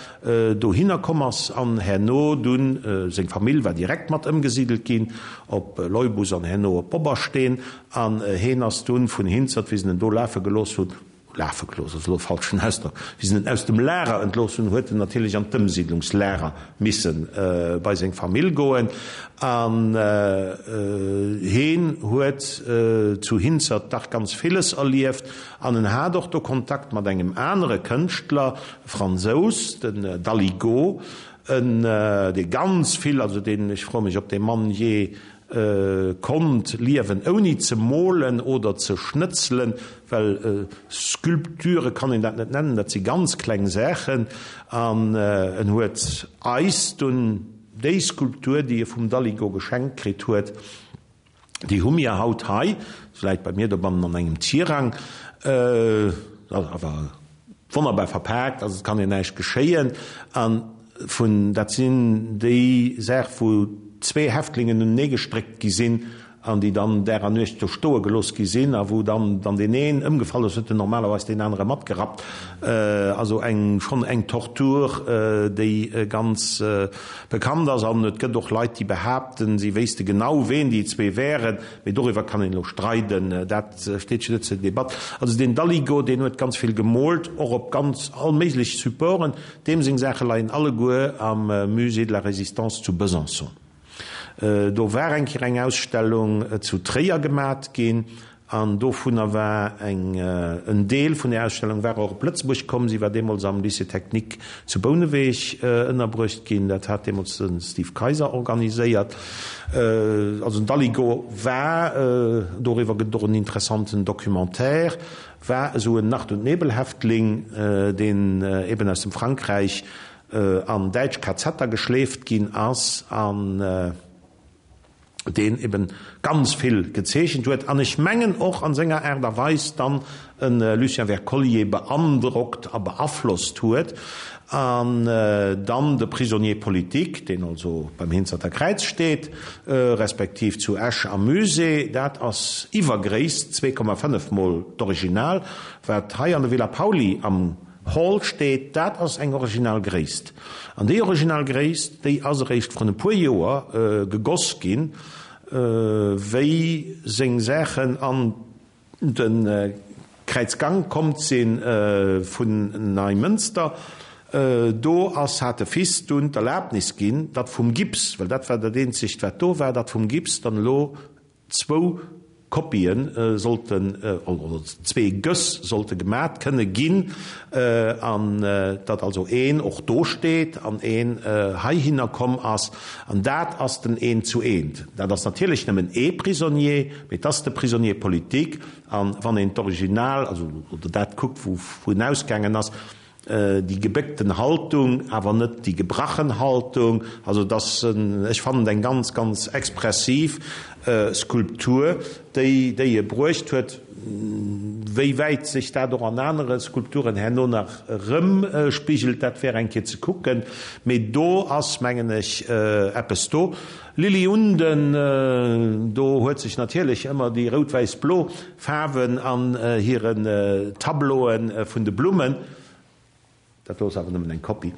D: dohinner komm ass an herno dunn, seng Famill war direkt mat ëmgesidelt ginn op Leubus an herno op Bobbersteen, an heen ass dunn vun Hinzert, wéi se en do lafe gelooss hunn, lafe gelooss ass elo e falschen Ausdrock, wéi se en aus dem Lager entlooss hunn, huet en natierlech an d'Ëmsiidlungslager misse bei seng Famill goen an heen huet zu Hinzert dach ganz villes erlieft an en hat och do Kontakt mat engem anere Kënschtler, e Fransous, den Daligot, en dee ganz vill, also deen, ech froe mech, ob dee Mann jee konnt liewen ouni ze molen oder ze schnëtzelen, well Sculpture kann een dat net nennen, dat si ganz kleng Saachen. An en huet eis dunn déi Skulptur, déi e vum Daligot geschenkt kritt huet, déi hu mir haut hei, se läit bei mir dobannen an engem Tirang, awer wonnerbar verpaakt, also et kann ihr näischt geschéien. An vun, dat sinn déi Saach, wou zwee Häftlingen unenee gestréckt gi sinn an déi dann Dag an Nuecht do stoe gelooss gi sinn a wou dann, wann deen een ëmgefall ass, huet en normalerweis deen anere matgerappt. Also eng, schonn eng Tortur, déi ganz bekannt ass. An et gëtt och Leit, déi behaapten, si wéisste genau, ween déi zwee wären. Mee doriwwer kann een elo streiden, dat steet jo net zur Debatt. Also deen Daligot, deen huet ganz vill gemoolt, och op ganz all méiglech Supporten. Deem seng Saache leien alleguer am Musée de la Résistance zu Besançon. Do war eng Kéier eng Ausstellung zu Tréier gemat ginn an dovunner war eng, en Deel vun där Ausstellung war och op Lëtzebuerg komm. Si war deemools am Lycée technique zu Bouneweg ënnerbruecht ginn. Dat hat deemools de Steve Kayser organiséiert. Also den Daligot war, doriwwer gëtt et och en interessanten Documentaire, war esou en Nacht und Nebelhäftling, deen eben aus dem Frankräich an däitsch KZer geschleeft ginn ass an deen eben ganz vill gezeechent huet an ech mengen och an senger Aart a Weis dann e Lucien Wercollier beandrockt a beaflosst huet an dann de Prisonnier politique, deen also beim Hinzerter Kräiz steet, respektiv zu Esch am Musée, dat ass iwwer Gréisst, 2,5 mol d'Original, wat hei an der Villa Pauly am Hall steet, dat ass eng original Gréisst. An déi original Gréisst, déi ass eréischt vrun e puer Joer gegoss ginn, wéi seng Saachen an de Kräizgank komm si vun Neimënster. Do ass, hat de Fils dunn d'Erlaabnis ginn, datt vum Gips, well dat war dat eenzegt wat do war, datt vum Gips dann elo zwou Kopie sollten, oder zwee Göss sollte gemat kënne ginn, an datt also een och do steet an een heihinner komm ass. An dat ass den Eent zu Eent. Dat ass natierlech nëmmen ee Prisonnier, mee et ass de Prisonnier politique. An wann een d'Original, also oder dat kuckt, wou en ausgaangen ass, Déi gebéckten Haltung, awer net déi gebrachen Haltung. Also et ass, ech fannen et eng ganz, ganz expressiv Skulptur, déi déi e bruecht huet. Wéi wäit sech dat och an anere Skulpturen herno nach erëmspigelt, dat wär eng Kéier ze kucken. Mee do ass, mengen ech, eppes do. Lily Unden, do huet sech natierlech ëmmer déi rout-wäiss-blo Faarwen an hiren Tableauen vun de Blummen, dat do ass awer nëmmen eng Kopie.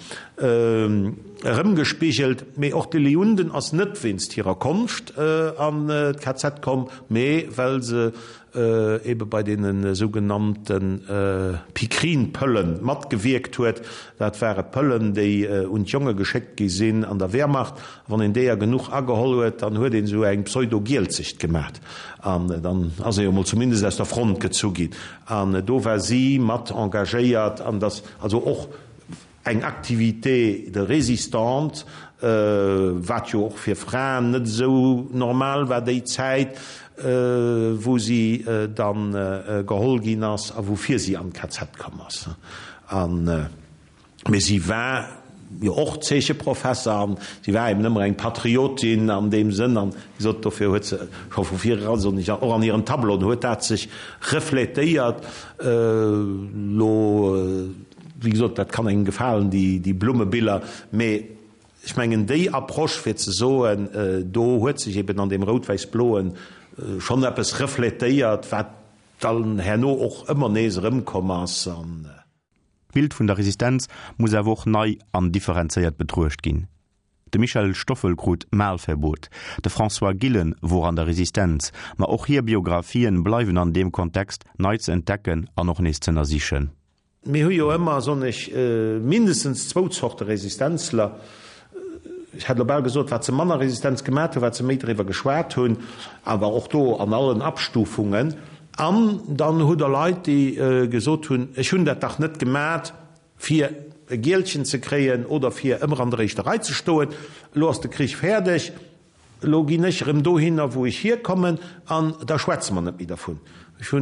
D: Erëmgespigelt. Mee och d'Lily Unden ass net wéinst hirer Konscht an d'KZ komm, mee well se ebe bei deene sougenannte Pikrin-Pëllen matgewierkt huet. Dat ware Pëllen, déi un d'Jonge geschéckt gi sinn an der Wehrmacht. A wann een deeër genuch ageholl huet, dann huet een esou eng Pseudo-Gielzecht gemat. An dann ass ee jo mol zumindest aus der Front gezu ginn. An do war si mat engagéiert. An dass also och eng Activité de résistante, wat jo och fir Fraen net esou normal war déi Zäit, wou si dann geholl ginn ass a woufir si an d'KZ komm ass. An, mee si war jo och Zeecheprofesser an si war eben ëmmer eng Patriotin an deem Sënn an, wéi gesot, dofir huet se scho vu vir eran, soen ech, och an hiren Tableauen huet dat sech reflétéiert. Elo. Wéi gesot, dat kann engem gefalen, déi Blummebiller, mee ech mengen, déi Approche fir ze soen, do huet sech eben an deem Rout-Wäiss-Bloen schonn eppes refletéiert, wat dann herno och ëmmer nees erëmkomm ass.
C: D'Bild vun der Resistenz muss awer och nei an differenzéiert betruecht ginn. De Michel Stoffel krut Malverbot, de François Gillen wor an der Resistenz, ma och hir Biographien bleiwen an deem Kontext nei ze entdecken an och nees z'ënnersichen.
D: Mir hu jo ëmmer, soen ech, mindestens zwou Zorte Resistenzler. Ech hätt elo bal gesot, wat se manner Resistenz gemat hunn, wat se méi driwwer geschwat hunn, awer och do an allen Abstufungen. An dann hutt Der Leit, déi gesot hunn, ech hunn dat dach net gemat, fir e Gielchen ze kréien oder fir ëmmer an der éischter Rei ze stoen. Elo ass de Krich fäerdeg. Elo ginn ech erëm dohinner, wou ech hierkommen, an da schwätze mer net méi dervun. Ech hu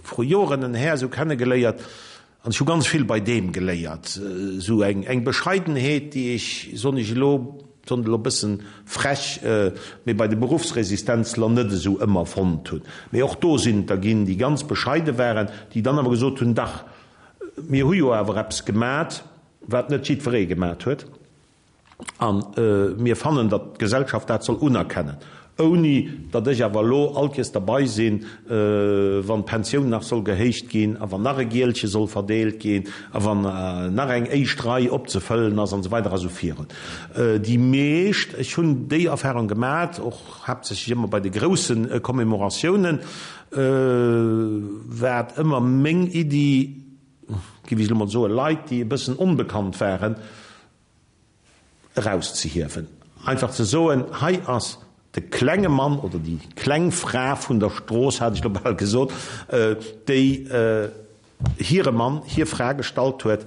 D: vru Joren en Här esou kennegeléiert, an ech hu ganz vill bei deem geléiert, esou eng Bescheidenheet, déi ech, soen ech elo, soen et elo e bëssen frech, mee bei de Beruffsresistenzler net esou ëmmer fonnt hunn. Mee och do sinn et der ginn, déi ganz bescheide waren, déi dann awer gesot hunn, Dach, mir hu jo awer eppes gemat, wat net jiddweree gemat huet. A mir fannen, datt d'Gesellschaft dat soll unerkennen, ouni datt ech awer elo all Kees derbei sinn, wann d'Pensioun nach soll gehéicht ginn a wann nach e Gielche soll verdeelt ginn a wann nach eng éischt Rei opzefëllen ass an esou weider a sou virun. Déi meescht, ech hunn déi Erfahrung gemat, och haaptsächlech ëmmer bei de grousse Commemoratiounen, war et ëmmer meng Iddi, géif ech elo mol soen, Leit, déi e bëssen onbekannt waren, erauszehiewen. Einfach ze soen, hei ass de klenge Mann oder déi kleng Fra vun der Strooss, hat ech elo bal gesot, déi hire Mann, hir Fra gestallt huet,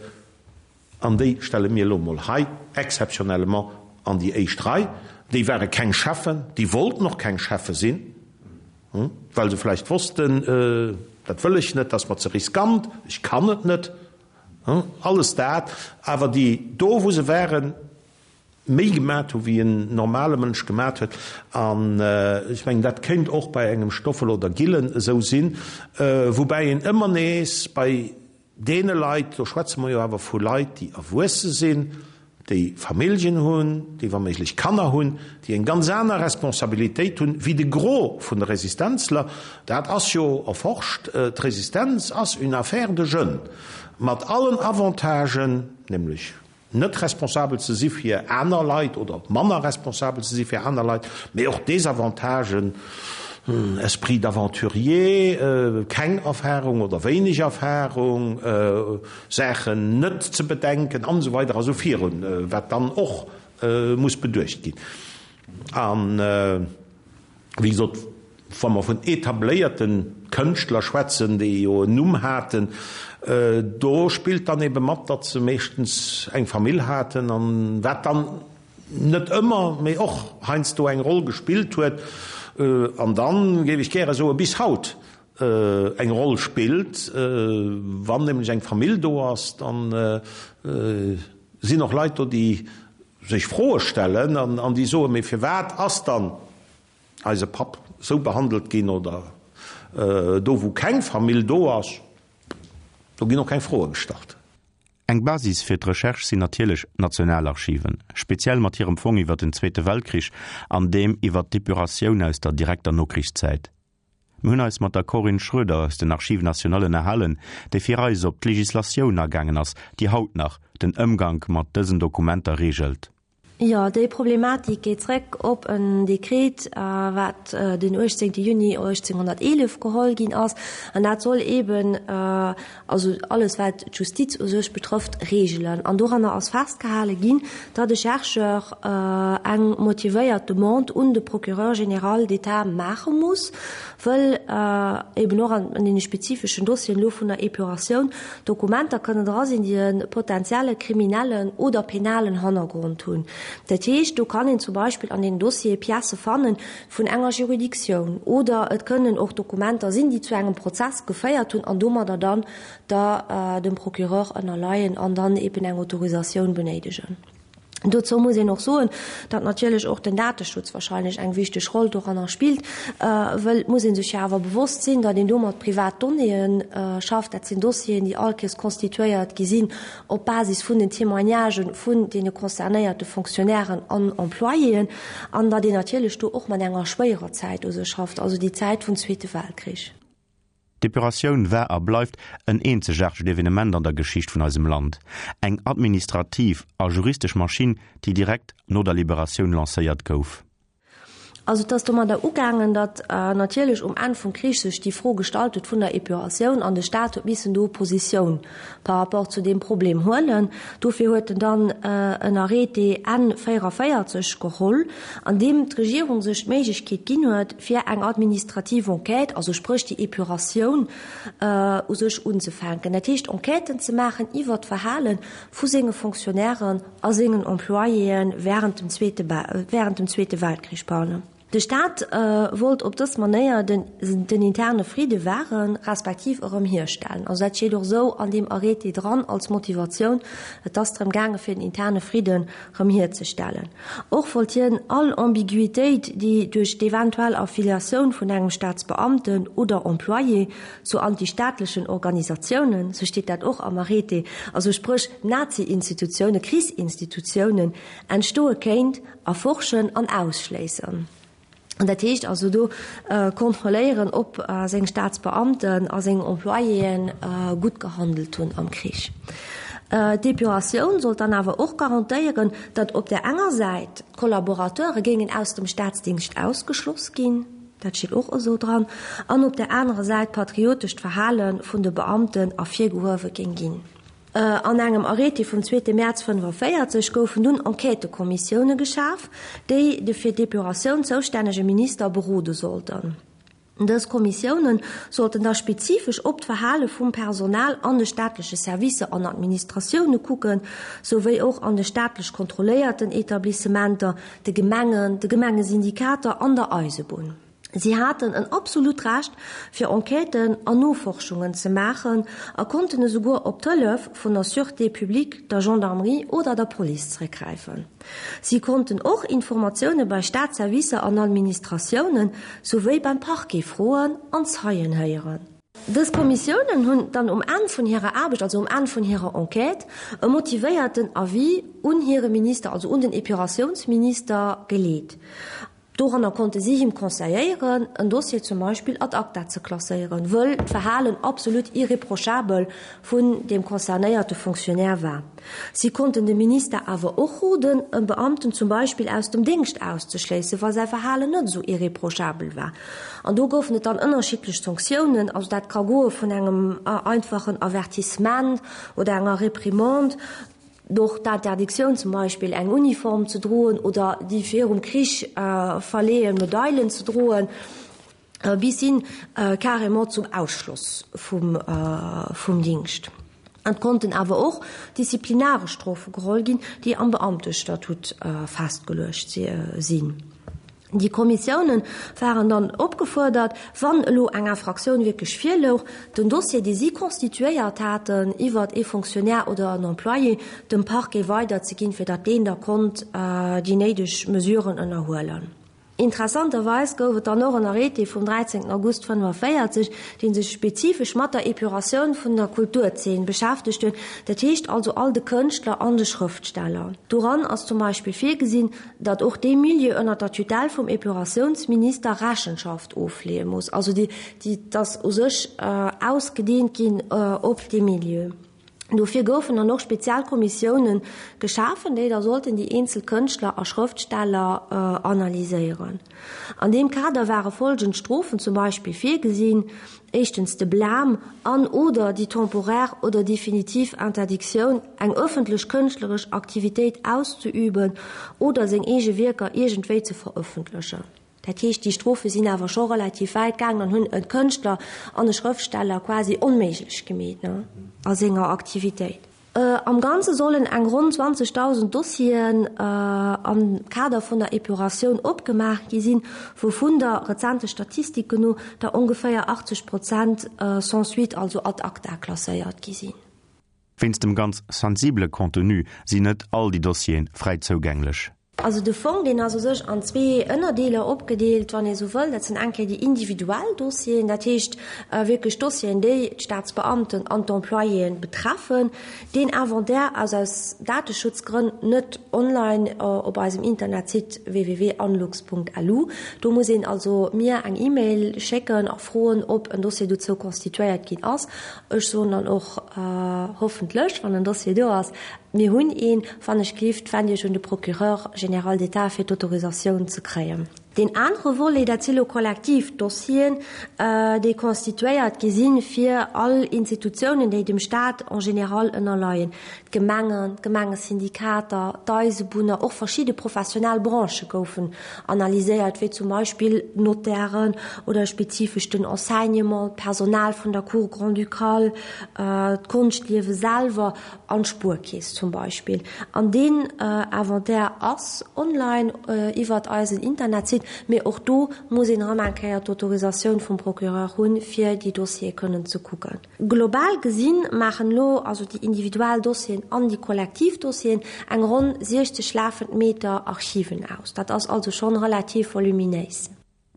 D: an déi stelle mir elo emol hei exceptionnellement an déi éischt Rei. Déi ware keng Cheffen, déi wollten och keng Cheffe sinn, well se vläicht wossten, dat wëll ech net, dat ass mer ze riskant, ech kann et net. Alles dat, awer déi do wou se waren, méi gemat hu wéi en normale Mënsch gemat huet. An ech mengen, dat kéint och bei engem Stoffel oder Gillen esou sinn, woubäi een ëmmer nees bei deene Leit, do schwätze mer jo awer vu Leit, déi erwuesse sinn, déi Familljen hunn, déi wa méiglech Kanner hunn, déi eng ganz aner Responsabilitéit hunn wéi de Gros vun de Resistenzler. Dat ass jo erforscht, d'Resistenz ass une affaire de jeunes, mat allen Avantagen, nämlech net responsabel ze si fir aner Leit oder manner responsabel ze si fir aner Leit, mee och Desavantagen, Esprit d'aventurier, keng Erfahrung oder wéineg Erfahrung, Saachen net ze bedenken an esou weider a sou virun, wat dann och muss beduecht ginn. A wéi gesot, wa mer vun etabléierte Kënschtler schwätzen, déi jo en Numm haten, do spillt dann ebe mat, datt se meeschtens eng Famill haten an wat dann net ëmmer, mee och heiansdo eng Roll gespillt huet. An dann géif ech gäre soe bis haut eng Roll spillt. Wann nämlech eng Famill do ass, dann sinn och Leit do, déi sech Froe stellen an déi soen, mee firwat ass dann eise Papp esou behandelt ginn? Oder do wou keng Famill do ass, do ginn och keng Froe gestallt.
C: Eng Basis fir d'Recherche sinn natierlech d'Nationalarchiven, speziell mat hirem Fong iwwer den Zweete Weltkrich an deem iwwer d'Depuratioun aus der direkter Nokrichszäit. Mir hunn eis mat der Corinne Schroeder aus den Archives nationales ënnerhalen, déi fir eis op d'Legislatioun agaangen ass, déi haut nach den Ëmgank mat dësen Dokumenter reegelt.
B: Jo, déi Problematik geet zréck op en Dekret, wat den 18 Juni 1811 geholl ginn ass. An dat soll eeben, also alles wat d'Justiz u sech betrëfft, reegelen. An doranner ass festgehale ginn, datt e Chercheur eng motivéiert Demande un de Procureur général d'État maache muss, wëll eeben och an deene spezifeschen Dossieren elo vun der Epuratioun Dokumenter kënnen dra sinn, déi e potenzielle kriminellen oder penalen Hannergrond hunn. Dat heescht, do kann een zum Beispill an deenen Dossiere Piècë fanne vun enger Juridictioun oder et kënnen och Dokumenter sinn, déi zu engem Prozess geféiert hunn an domadder dann der dem Procureur ënnerleien an dann eben eng Autorisatioun benéidegen. Dozou muss een och soen, datt natierlech och den Dateschutz wahrscheinlech eng wichteg Roll doranner spillt, wëll et muss ee sech jo awer bewosst sinn, datt een do mat privat Donnéeë schafft. Dat sinn Dossieren, déi all Kéiers constituéiert gi sinn op Basis vun den Témoignagë vun deene concernéierte Fonctionnairen an Employéen, an datt een natierlech do och mat enger schwéierer Zäit u sech schafft, also déi Zäit vum Zweete Weltkrich.
C: D'Epuratioun war a bleift en eenzegaartegt Evenement an der Geschicht vun eisem Land, eng administrativ a juristesch Maschinn, déi direkt no der Liberatioun lancéiert gouf.
B: Also et ass domadder ugaangen, datt natierlech um Enn vum Krich sech déi Fro gestallt huet vun der Epuratioun an de Staat huet missen do Positioun par rapport zu deem Problem huelen. Dofir huet en dann en Arrêté Enn 44 geholl, an deem d'Regierung sech d'Méiglechkeet ginn huet, fir eng administrativ Enquête, also spréch déi Epuratioun u sech unzefänken. Dat heescht Enquêten ze maachen iwwert d'Verhale vu senge Fonctionnairen a sengen Employéë während dem Zweete, während dem Zweete Weltkrich, pardon. De Staat wollt op dës Manéier den interne Fridde wahren, respektiv erëm hierstellen. Also dat steet och esou an deem Arrêté dran als Motivatioun. Et ass drëm gaange fir den interne Fridden erëm hierzestellen. Och wollt hien all Ambiguitéit, déi duerch d'eventuell Affiliatioun vun engem Staatsbeamten oder Employé zu antistaatlechen Organisatiounen, sou steet dat och am Arrêté, also spréch Nazi-Institutiounen, Krichsinstitutiounen, entstoe kéint, Erforschen an ausschléissen. An dat heescht also do kontrolléieren, ob seng Staatsbeamten a seng Employéen gutt gehandelt hunn am Krich. D'Epuratioun sollt dann awer och garantéieren, datt op där enger Säit d'Kollaborateure géingen aus dem Staatsdingscht ausgeschloss ginn, dat steet och esou dran, an op där anerer Säit d'patriotescht Verhale vun de Beamten ervirgehuewe géing ginn. An engem Arrêté vum zweete Mäerz 45 goufen dunn Enquêtëkommissioune geschaf, déi de fir d'Epuratioun zoustännege Minister berode sollten. Dës Kommissioune sollten da spezifesch op d'Verhale vum Personal an de staatleche Servicer an Administratioune kucken, souwéi och an de staatlech kontrolléierten Etablissementer, de Gemengen, de Gemengesyndikater an der Eisebunn. Si haten en absolut Recht, fir Enquêten an Noforschungen ze maachen a konnten esouguer op d'Hëllef vun der Sûreté publique, der Gendarmerie oder der Police zeréckgräifen. Si konnten och Informatioune bei Staatsservicer an Administratiounen souwéi beim Parquet froen an Zeien héieren. Dës Kommissiounen hunn dann um Enn vun hirer Aarbecht, also um Enn vun hirer Enquête, e motivéierten Avis un hire Minister, also un den Epuratiounsminister, geleet. Doranner konnte si him conseilléieren, en Dossier zum Beispill ad acta ze klasséieren, wëll d'Verhalen absolut irreprochabel vun deem concernéierte Fonctionnaire war. Si konnten dem Minister awer och roden, e Beamten zum Beispill aus dem Déngscht auszeschléissen, wa säi Verhalen net esou irreprochabel war. An do goufen et dann ënnerschiddlech Sanktiounen, also dat ka goe vun engem einfachen Avertissement oder enger Reprimande, Och d'Interdictioun zum Beispill eng Uniform ze droen oder déi virum Krich verleeën Medailen ze droen, bis hin carrément zum Ausschloss vum Dingscht. Et konnten awer och disziplinaresch Strofe geholl ginn, déi am Beamtestatut festgeluecht sinn. Déi Kommissiounen waren dann opgefuerdert, wann elo eng Infraktioun wierklech virlouch, den Dossier, dee si constituéiert haten iwwert ee Fonctionnaire oder en Employé, dem Parquet weiderzeginn, fir datt deen da konnt déi néideg Mesuren ënnerhuelen. Interessanterweis gouf et dann och en Arrêté vum 13 August 45, dee sech spezifesch mat der Epuratioun vun der Kulturzeen beschäftegt huet, dat heescht also all de Kënschtler an de Schrëftsteller. Doran ass zum Beispill virgesinn, datt och dee Milieu ënner der Tutelle vum Epuratiounsminister Rechenschaft ofleeë muss, also déi, déi ass u sech ausgedeent ginn op dee Milieu. Dofir goufen dann och spezial Kommissiounen geschafen, déi da sollten déi eenzel Kënschtler a Schrëftsteller analyséieren. An deem Kader ware folgend Strofen zum Beispill virgesinn, éischtens de Blâme an oder déi temporaire oder definitiv Interdictioun, eng ëffentlech kënschtleresch Aktivitéit auszeüben oder seng eege Wierker iergendwéi ze verëffentlechen. Dat heescht, déi Strofe sinn awer scho relativ wäit gaangen an hunn e Kënschtler an e Schrëftsteller quasi onméiglech gemeet a senger Aktivitéit. Am Ganze sollen eng ronn 20.000 Dossieren am Kader vun der Epuratioun opgemaach gi sinn, wouvun der rezente Statistiken no der ongeféier 80 Prozent sans suite, also ad acta klasséiert gi sinn.
C: Wéinst dem ganz sensibele Contenu sinn net all déi Dossiere fräi zougänglech.
B: Also de Fong, deen ass u sech an zwee Ënnerdeeler opgedeelt, wann ee sou wëll. Dat sinn eng Kéier déi individuell Dossieren, dat heescht wierklech Dossieren, déi d'Staatsbeamten an d'Employéen betreffen. Deen Inventaire ass aus Dateschutzgrënn net online op eisem Internetsite www.anlux.lu. Do muss een also mir eng E-Mail schécken a froen, ob en Dossier dozou constituéiert ginn ass. Ech soen dann och, hoffentlech, wann en Dossier do ass, Mir hunn een, wann ech gelift, wend Iech un de Procureur général d'État, fir d'Autorisatioun ze kréien. Deen anere Volet, dat si lo kollektiv Dossieren, déi constituéiert gi sinn, fir all Institutiounen, déi dem Stat en général ënnerleien, d'Gemengen, d'Gemengesyndikater, d'Eisebunner, och verschidde professionell Branchë goufen analyséiert, wéi zum Beispill d'Notairen oder spezifesch den Enseignement, d'Personal vun der Cour grand-ducale, d'Konschtliewe selwer an d'Spuerkeess zum Beispill. An deen Inventaire ass online iwwert eisen Internetsite, mee och do muss een erëm eng Kéier d'Autorisatioun vum Procureur hunn, fir déi Dossiere kënnen ze kucken. Global gesinn maachen elo also déi individuell Dossieren an déi kollektiv Dossieren eng ronn 60 lafend Meter Archiven aus. Dat ass also schonn relativ voluminéis.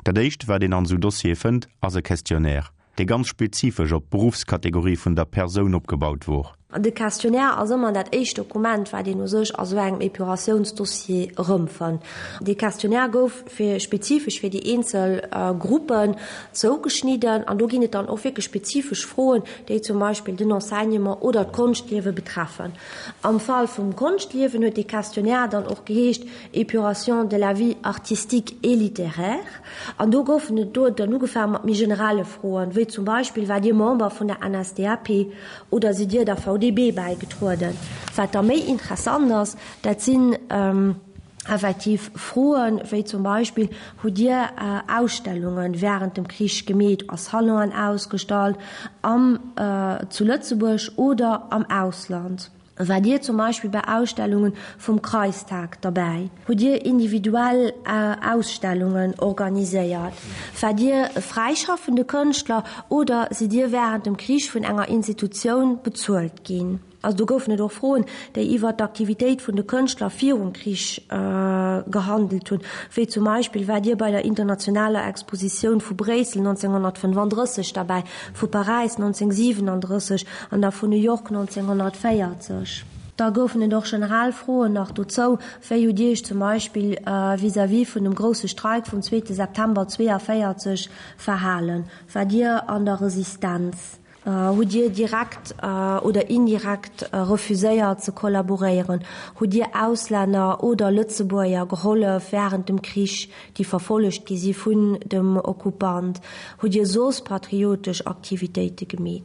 C: Dat éischt, wat een an esou Dossiere fënnt, ass e Questionnaire, dee ganz spezifesch op d'Beruffskategorie vun der Persoun opgebaut wor.
B: De Questionnaire ass ëmmer dat éischt Dokument, wat een u sech a sou engem Epuratiounsdossier erëmfënnt. Dee Questionnaire gouf fir spezifesch fir déi eenzel Gruppen zougeschnidden an do ginn et dann och wierklech spezifesch Froen, déi zum Beispill den Enseignement oder d'Konschtliewe betreffen. Am Fall vum Konschtliewen huet dee Questionnaire dann och geheescht Épuration de la vie artistique et littéraire an do goufen et do dann ugefaange mat méi generelle Froen, wéi zum Beispill, Waart Dir Member vun der NSDAP oder sidd Dir der VDB bäigetrueden? Wat da méi interessant ass, dat sinn effektiv Froen, wéi zum Beispill, Hutt Dir Ausstellunge wärend dem Krich gemeet, a Salonen ausgestallt, am zu Lëtzebuerg oder am Ausland? Waart Dir zum Beispill bei Ausstellunge vum Kreistag derbäi? Hutt Dir individuell Ausstellungen organiséiert? Waart Dir e fräischaffende Kënschtler oder sidd Dir wärend dem Krich vun enger Institutioun bezuelt ginn? Also do goufen et och Froen, déi iwwert d'Aktivitéit vun de Kënschtler virum Krich gehandelt hunn, wéi zum Beispill, Waart Dir bei der internationaler Expositioun vu Bréissel 1935 derbäi, vu Paräis 1937 an da vun New York 1940? Da goufen et och generell Froen nach dozou, Wéi hutt Dir Iech zum Beispill vis-à-vis vun dem grousse Streik vum zweete September 42 verhalen? Waart Dir an der Resistenz? Hutt Dir direkt oder indirekt refuséiert ze kollaboréieren? Hutt Dir Auslänner oder Lëtzebuerger gehollef wärend dem Krich, déi verfollegt gi si vun dem Okkupant? Hutt Dir soss patriotesch Aktivitéite gemeet?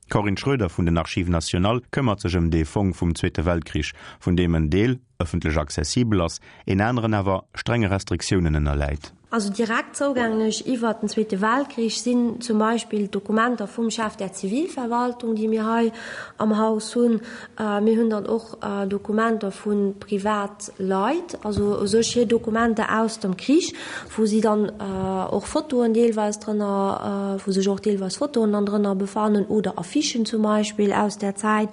C: D'Corinne Schroeder vun den Archives nationales këmmert sech ëm dee Fong vum Zweete Weltkrich, vun deem en Deel ëffentlech accessibel ass, een aneren awer strenge Restriktiounen ënnerläit.
B: Also direkt zougänglech iwwert den Zweete Weltkrich sinn zum Beispill d'Dokumenter vum Chef der Zivilverwaltung, déi mir hei am Haus hunn. Mir hunn dann och Dokumenter vu Privatleit, also u sech hir Dokumenter aus dem Krich, wou si dann och Fotoen deelweis drënner, wou sech och deelweis Fotoen dann drënner befannen oder Affichen zum Beispill aus där Zäit.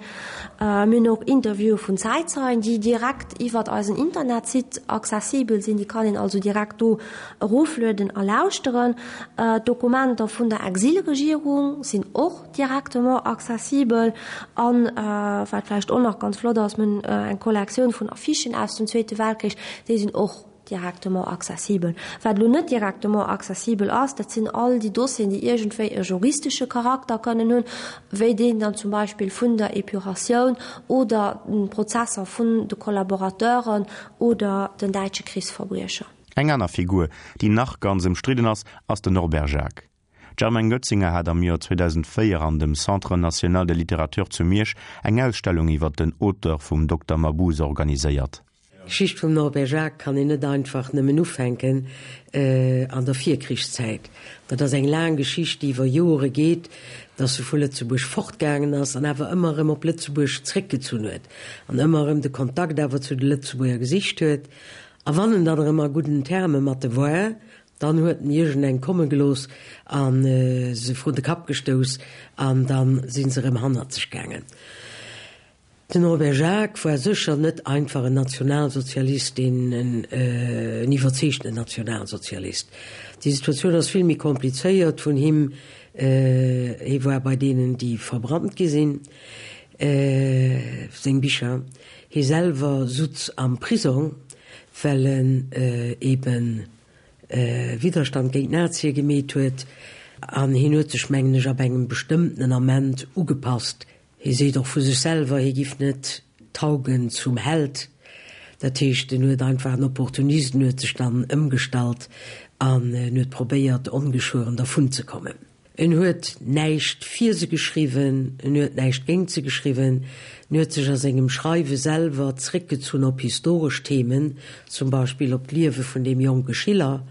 B: Mir hunn och Interviewe vun Zäitzeien, déi direkt iwwert eisen Internetsite accessibel sinn. Déi kann een also direkt do. eroflueden a lauschteren. D'Dokumenter vun der Exilregierung sinn och directement accessibel. An wat vläicht och nach ganz flott ass, mir hunn eng Kollektioun vun Affichen aus dem Zweete Weltkrich, déi sinn och directement accessibel. Wat elo net directement accessibel ass, dat sinn all déi Dossieren, déi iergendwéi e juristesche Charakter kënnen hunn, wéi deen dann zum Beispill vun der Epuratioun oder d'Prozesser vun de Kollaborateuren oder den däitsche Krichsverbriecher.
C: Eng aner Figur, déi nach ganz ëmstridden ass, ass den Norbert Jacques. D'Germaine Goetzinger hat am Joer 2004 an dem Centre national de littérature zu Miersch eng Ausstellung iwwer den Auteur vum Dokter Mabuse organiséiert.
E: D'Geschicht vum Norbert Jacques kann een net einfach nëmmen ufänken an der Virkrichszäit. Dat ass eng laang Geschicht, déi iwwer Jore geet, dass e vu Lëtzebuerg fortgaangen ass an awer ëmmer erëm op Lëtzebuerg zréckgezunn huet an ëmmer erëm de Kontakt awer zu de Lëtzebuerger gesicht huet. A wann en dann erëm a gudden Terme mat de war, Dann huet en iergendeng komme gelooss a se vrun de Kapp gestouss an da si se erëm hannerzeg gaangen. Den Norbert Jacques war sécher net einfach en Nationalsozialist, deen en iwwerzeegtenen Nationalsozialist. Déi Situatioun ass vill méi komplizéiert vun him. Hie war bei deenen, déi verbrannt gi sinn, seng Bicher. Hie selwer sutz am Prisong, well en eben Widderstand géint d'Nazie gemeet huet an hien huet sech, mengen ech, ab engem bestëmmtenen Ament ugepasst. Hie seet och vu sech selwer, hie giff net taugen zum Held. Dat heescht, en huet einfach en Opportunist, en huet sech dann ëmgestallt an en huet probéiert, ongeschueren dervunzekommen. En huet näischt fir se geschriwwen, en huet näischt géint se geschriwwen, en huet sech a sengem Schreiwe selwer zréckgezunn op historesch Themen, zum Beispill op d'Liewe vun deem jonke Schiller,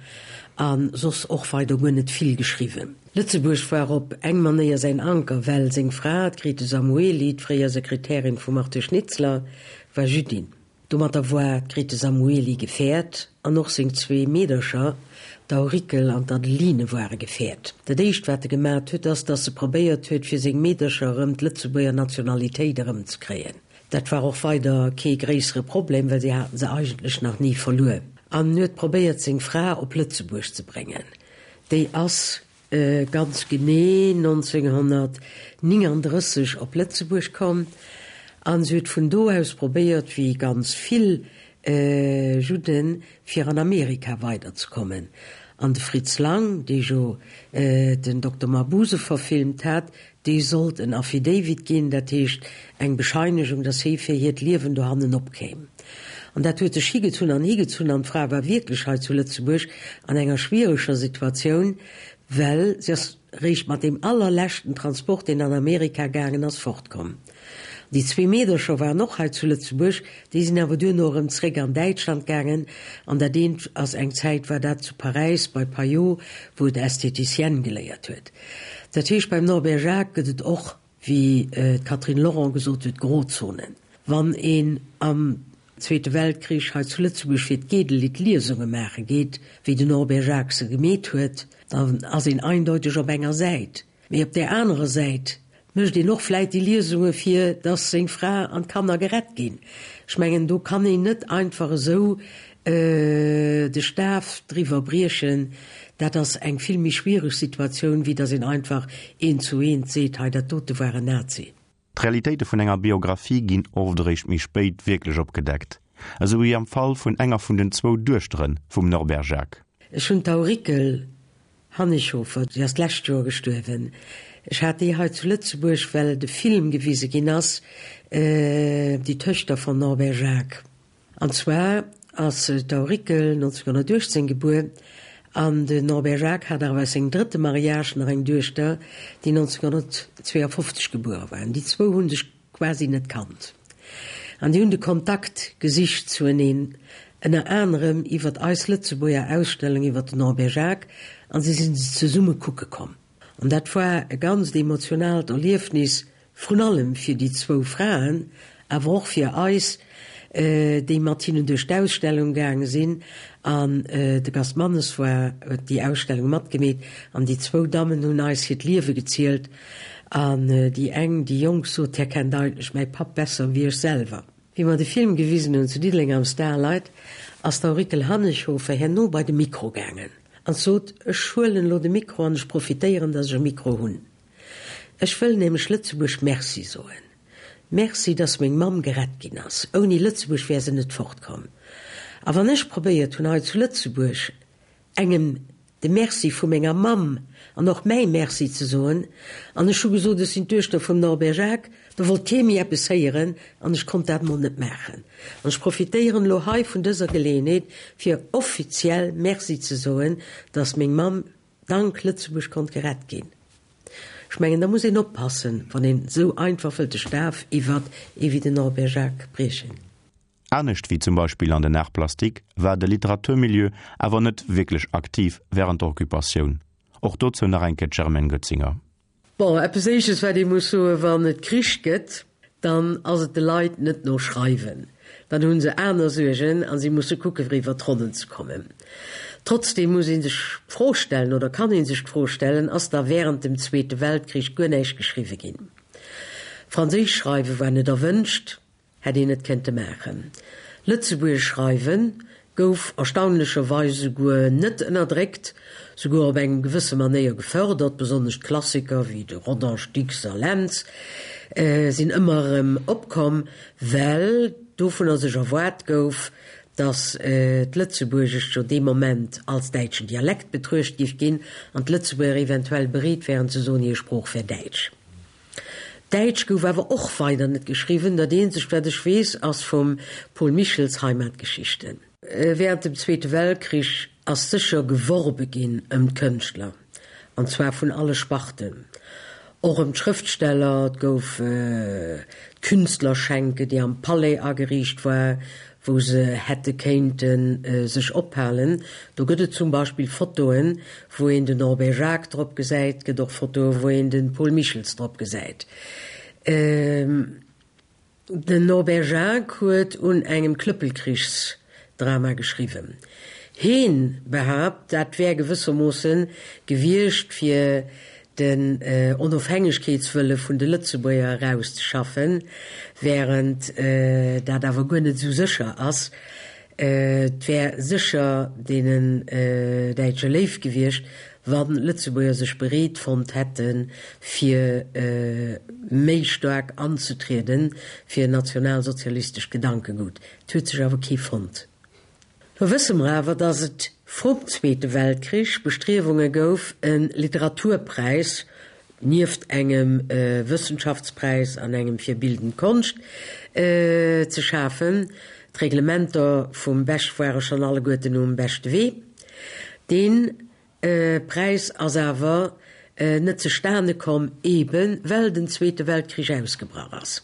E: a soss och weider guer net vill geschriwwen. Lëtzebuerg war op eng Manéier säin Anker, well seng Fra, d'Grete Samuely, d'fréier Sekretärin vum Arthur Schnitzler, war Jüddin. Domatter war d'Grete Samuely gefäert an och seng zwee Meedercher, d'Aurikel an d'Adeline ware gefäert. Dat éischt wat e gemat huet ass, datt e probéiert huet fir seng Meedercher erëm d'Lëtzebuerger Nationalitéit erëmzekréien. Dat war och weider kee gréissere Problem, well si haten se eigentlech nach ni verluer. An en huet probéiert seng Fra op Lëtzebuerg ze bréngen. Déi ass ganz genee 1939 op Lëtzebuerg komm an se huet vun do aus probéiert, wéi ganz vill Judden, fir an Amerika weiderzekommen. An de Fritz Lang, dee jo den Dokter Mabuse verfilmt hat, dee sollt en Affidavit ginn, dat heescht eng Bescheinegung, datt hie fir hiert Liewen dohannen opkéim. An dat huet sech higezunn an higezunn an d'Fra war wierklech hei zu Lëtzebuerg an enger schwiereger Situatioun, well si ass réischt mat deem allerleschten Transport, deen an Amerika gaangen ass, fortkomm. Déi zwee Meedercher waren och hei zu Lëtzebuerg, déi sinn awer duerno erëm zréck an Däitschland gaangen an dat eent ass eng Zäit war dat zu Paräis bei Payot, wou et Esthéticienne geléiert huet. Dat heescht, beim Norbert Jacques gëtt et och, wéi d'Catherine Lorent gesot huet, Grozonen. Wann een am Zweete Weltkrich hei zu Lëtzebuerg fir d'Gedel-Lidd Liesunge maache geet, wéi den Norbert Jacques se gemeet huet, dann ass een eindeuteg op enger Säit. Mee op där anerer Säit mécht een och vläit déi Liesunge fir datt seng Fra an d'Kanner gerett ginn. Ech mengen, do kann een net einfach esou de Staf driwwer briechen. Dat ass eng vill méi schwiereg Situatioun, wéi datt een einfach eent zu eent seet, hei dat dote war en Nazi.
C: D'Realitéite vun enger Biographie ginn oft eréischt méi spéit wierklech opgedeckt, esou wéi am Fall vun enger vun den zwou Duechtere vum Norbert Jacques.
E: Ech hunn d'Aurikel Hannighofer, déi ass d'lescht Joer gestuerwen. Ech hat déi hei zu Lëtzebuerg, well de Film gewise ginn ass, Die Töchter von Norbert Jacques. An zwar ass d'Aurikel 1918 gebuer an den Norbert Jacques hat awer aus sengem drëtte Mariage nach eng Duechter, déi 1952 gebuere war. An déi zwou hu sech quasi net kannt. An déi hunn de Kontakt gesicht zueneen, ënner anerem iwwert eis Lëtzebuerger Ausstellung iwwert den Norbert Jacques, an si sinn se zesumme kucke komm. An dat war e ganzt emotionaalt Erliefnis, vrun allem fir déi zwou Fraen, awer och fir eis, déi mat hinnen duerch d'Ausstellung gaange sinn. An de Gast Mannes war, huet déi Ausstellung matgemeet, an déi zwou Dammen hunn eis hiert Liewe gezielt. An déi eng, déi jonk, sot, Här kennt eigentlech mäi Papp besser wéi ech selwer. Wéi mer de Film gewisen hunn zu Diddeleng am Starlight, ass d'Aurikel Hannighofer herno bei de Mikro gaangen. An sot, Ech huelen elo de Mikro an ech profitéieren, datt ech e Mikro hunn. Ech wëll nämlech Lëtzebuerg Merci soen. Merci, datt meng Mamm gerett ginn ass. Ouni Lëtzebuerg wär se net fortkomm. A wann ech probéiert hunn, hei zu Lëtzebuerg engem de Merci vu menger Mamm an och mäi Merci ze soen, an ech hu gesot, ech sinn d'Duechter vum Norbert Jacques, da wollt kee méi eppes héieren an ech konnt dat emol net maachen. An ech profitéieren elo hei vun dëser Geleeënheet, fir offiziell Merci ze soen, dass meng Mamm dank Lëtzebuerg konnt gerett ginn. Ech mengen, da muss een oppassen, wann een esou einfach wëllt de Staf iwwert ee wéi den Norbert Jacques briechen.
C: Anescht wéi zum Beispill an den Arts plastiques war de Literaturmilieu awer net wierklech aktiv wärend der Occupatioun. Och dozou nach eng Kéier d'Germaine Goetzinger.
E: Bon, eppes Éisches wat ee muss soen, Wann et Krich gëtt, dann ass et de Leit net no Schreiwen. Dann hu se aner Suergen a si musse kucke fir iwwer d'Ronnen ze kommen. Trotzdeem muss ee sech d'Fro stellen, oder kann ee sech d'Fro stellen, Ass da wärend dem Zweete Weltkrich guer näischt geschriwwe ginn? Franséisch schreiwe war net erwënscht. Hätt een net kéinte maachen. Lëtzebuergesch schreiwen gouf erstaunlecherweis esouguer net ënnerdréckt, souguer op eng gewësse Manéier gefërdert, besonnesch d'Klassiker wéi de Rodange, Dicks a Lentz sinn ëmmer erëm opkomm, well dovunner sech erwaart gouf, datt d'Lëtzebuergescht jo dee Moment als däitschen Dialekt betruecht giff ginn an d'Lëtzebuerger eventuell bereet wären ze soen, hir Sprooch wär däitsch. Däitsch gouf awer och weider net geschriwwen, dat eenzegt wat ech weess ass vum Paul Michels Heimatgeschichten. Während dem Zweete Weltkrich ass sécher geworbe ginn ëm d'Kënschtler, an zwar vun alle Sparten, och ëm d'Schrëftsteller. Et gouf d'Künstlerschenke, déi am Palais ageriicht war, wou se hätte kéinte sech ophalen. Do gëtt et zum Beispill Fotoen, wou een den Norbert Jacques drop gesäit, et gëtt och Fotoen, wou een de Paul Michels drop gesäit. Den Norbert Jacques huet un engem Klëppelkrichsdrama geschriwwen. Heen behaapt, dat wär gewëssermoosse gewiescht, fir den Onofhängegkeetswëlle vun de Lëtzebuerger erauszeschaffen, während dat awer guer net esou sécher ass. Et wär sécher deenen Däitsche léif gewiescht, wa Lëtzebuerger sech bereet fonnt hätte fir méi staark anzetriede fir en nationalsozialistescht Gedankegut. Et huet sech awer kee fonnt. Lo wësse mer awer, datt et vrum Zweete Weltkrich Bestriewunge gouf, e Literaturpräis, nieft engem Wëssenschaftspräis an engem fir bildend Konscht, ze schafen. D'Reglementer vum Bech ware schonn alleguerten um beschte Wee. Dee Präis ass awer net zestane komm, eebe well den Zweete Weltkrich ausgebrach ass.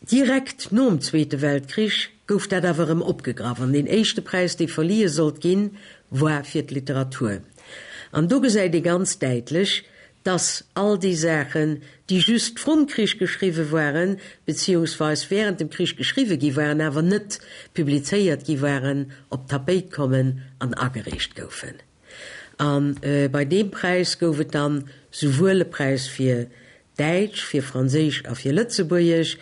E: Direkt nom Zweete Weltkrich gouf dat awer erëm opgegraff an deen éischte Präis, dee verlihe sollt ginn, war fir d'Literatur. An do gesäit ee ganz däitlech, dass all déi Saachen, déi just vrum Krich geschriwwe waren, beziehungsweis während dem Krich geschriwwe gi waren, awer net publizéiert gi waren, op d'Tapéit kommen an agereecht goufen. A bei deem Präis gouf et dann souwuel e Präis fir Däitsch, fir Franséisch a fir Lëtzebuergesch.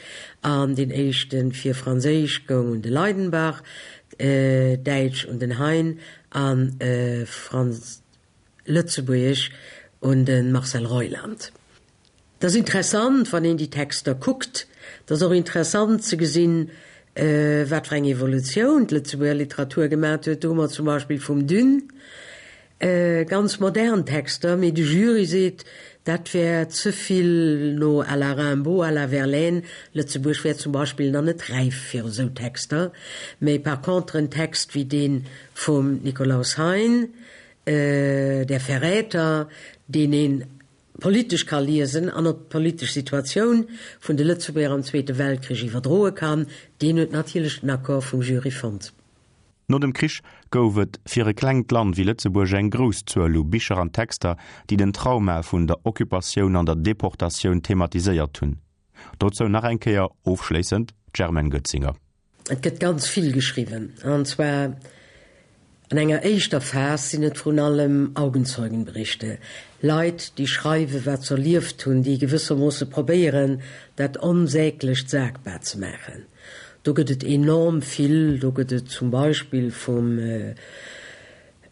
E: An deen éischte fir Franséisch goung un de Leydenbach, Däitsch un den Hein a Lëtzebuergesch un de Marcel Reuland. Et ass interessant, wann een déi Texter kuckt. Et ass och interessant ze gesinn, wat fir eng Evolutioun d'Lëtzebuerger Literatur gemat huet. Do hu mer zum Beispill vum Dune ganz modern Texter, mee de Jury seet, dat wär ze vill no à la Rimbaud, à la Verlaine. Lëtzebuerg wär zum Beispill nach net räif fir esou Texter. Mee par contre en Text wéi dee vum Nikolaus Hein, Der Verräter, deen een politesch ka liesen an op d'politesch Situatioun vun de Lëtzebuerger am Zweete Weltkrich iwwerdroe kann, deen huet natierlech den Accord vum Jury fonnt.
C: No dem Krich gouf et fir e klengt Land wéi Lëtzebuerg eng grouss Zuel u Bicher an Texter, déi den Trauma vun der Occupatioun an der Deportatioun thematiséiert hunn. Dozou nach eng Kéier ofschléissend d'Germaine Goetzinger.
E: Et gëtt ganz vill geschriwwen, an zwar an enger éischter Phas sinn et vrun allem Augenzeugenberichte, Leit, déi schreiwen, wat se erlieft hunn, déi gewëssermoosse probéieren, dat Onsäglecht sagbar ze maachen. Do gëtt et enorm vill. Do gëtt et zum Beispill vum.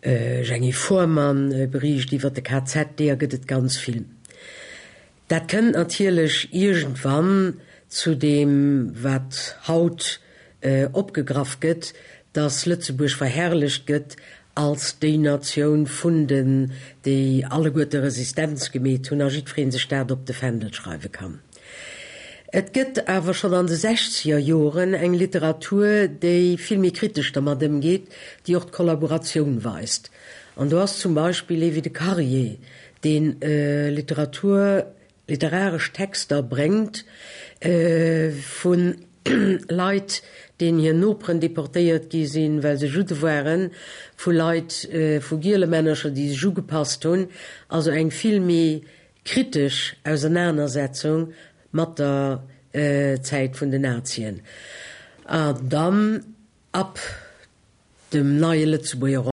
E: Jeanny Fohrmann beriicht iwwer de KZ, deeër gëtt et ganz vill. Dat kënnt natierlech iergendwann zu deem, wat haut opgegraff gëtt, datt Lëtzebuerg verherrlecht gëtt als déi Natioun vun den, déi alleguerte Resistenz gemeet hunn a jiddweree sech dat op de Fändel schreiwe kann. Et gëtt awer schonn an de sechzeger Joren eng Literatur, déi vill méi kritesch dermat ëmgeet, déi och d'Kollaboratioun weist. An do ass zum Beispill ee wéi de Carrier, dee Literatur, literaresch Texter bréngt vu Leit, deenen hir Noperen deportéiert gi sinn, well se Judde waren, vu Leit, vu Gielemännercher, déi sech ugepasst hunn. Also eng vill méi Kritesch Ausernanersetzung mat der Zäit vun den Nazien an dann ab dem neie Lëtzebuerger.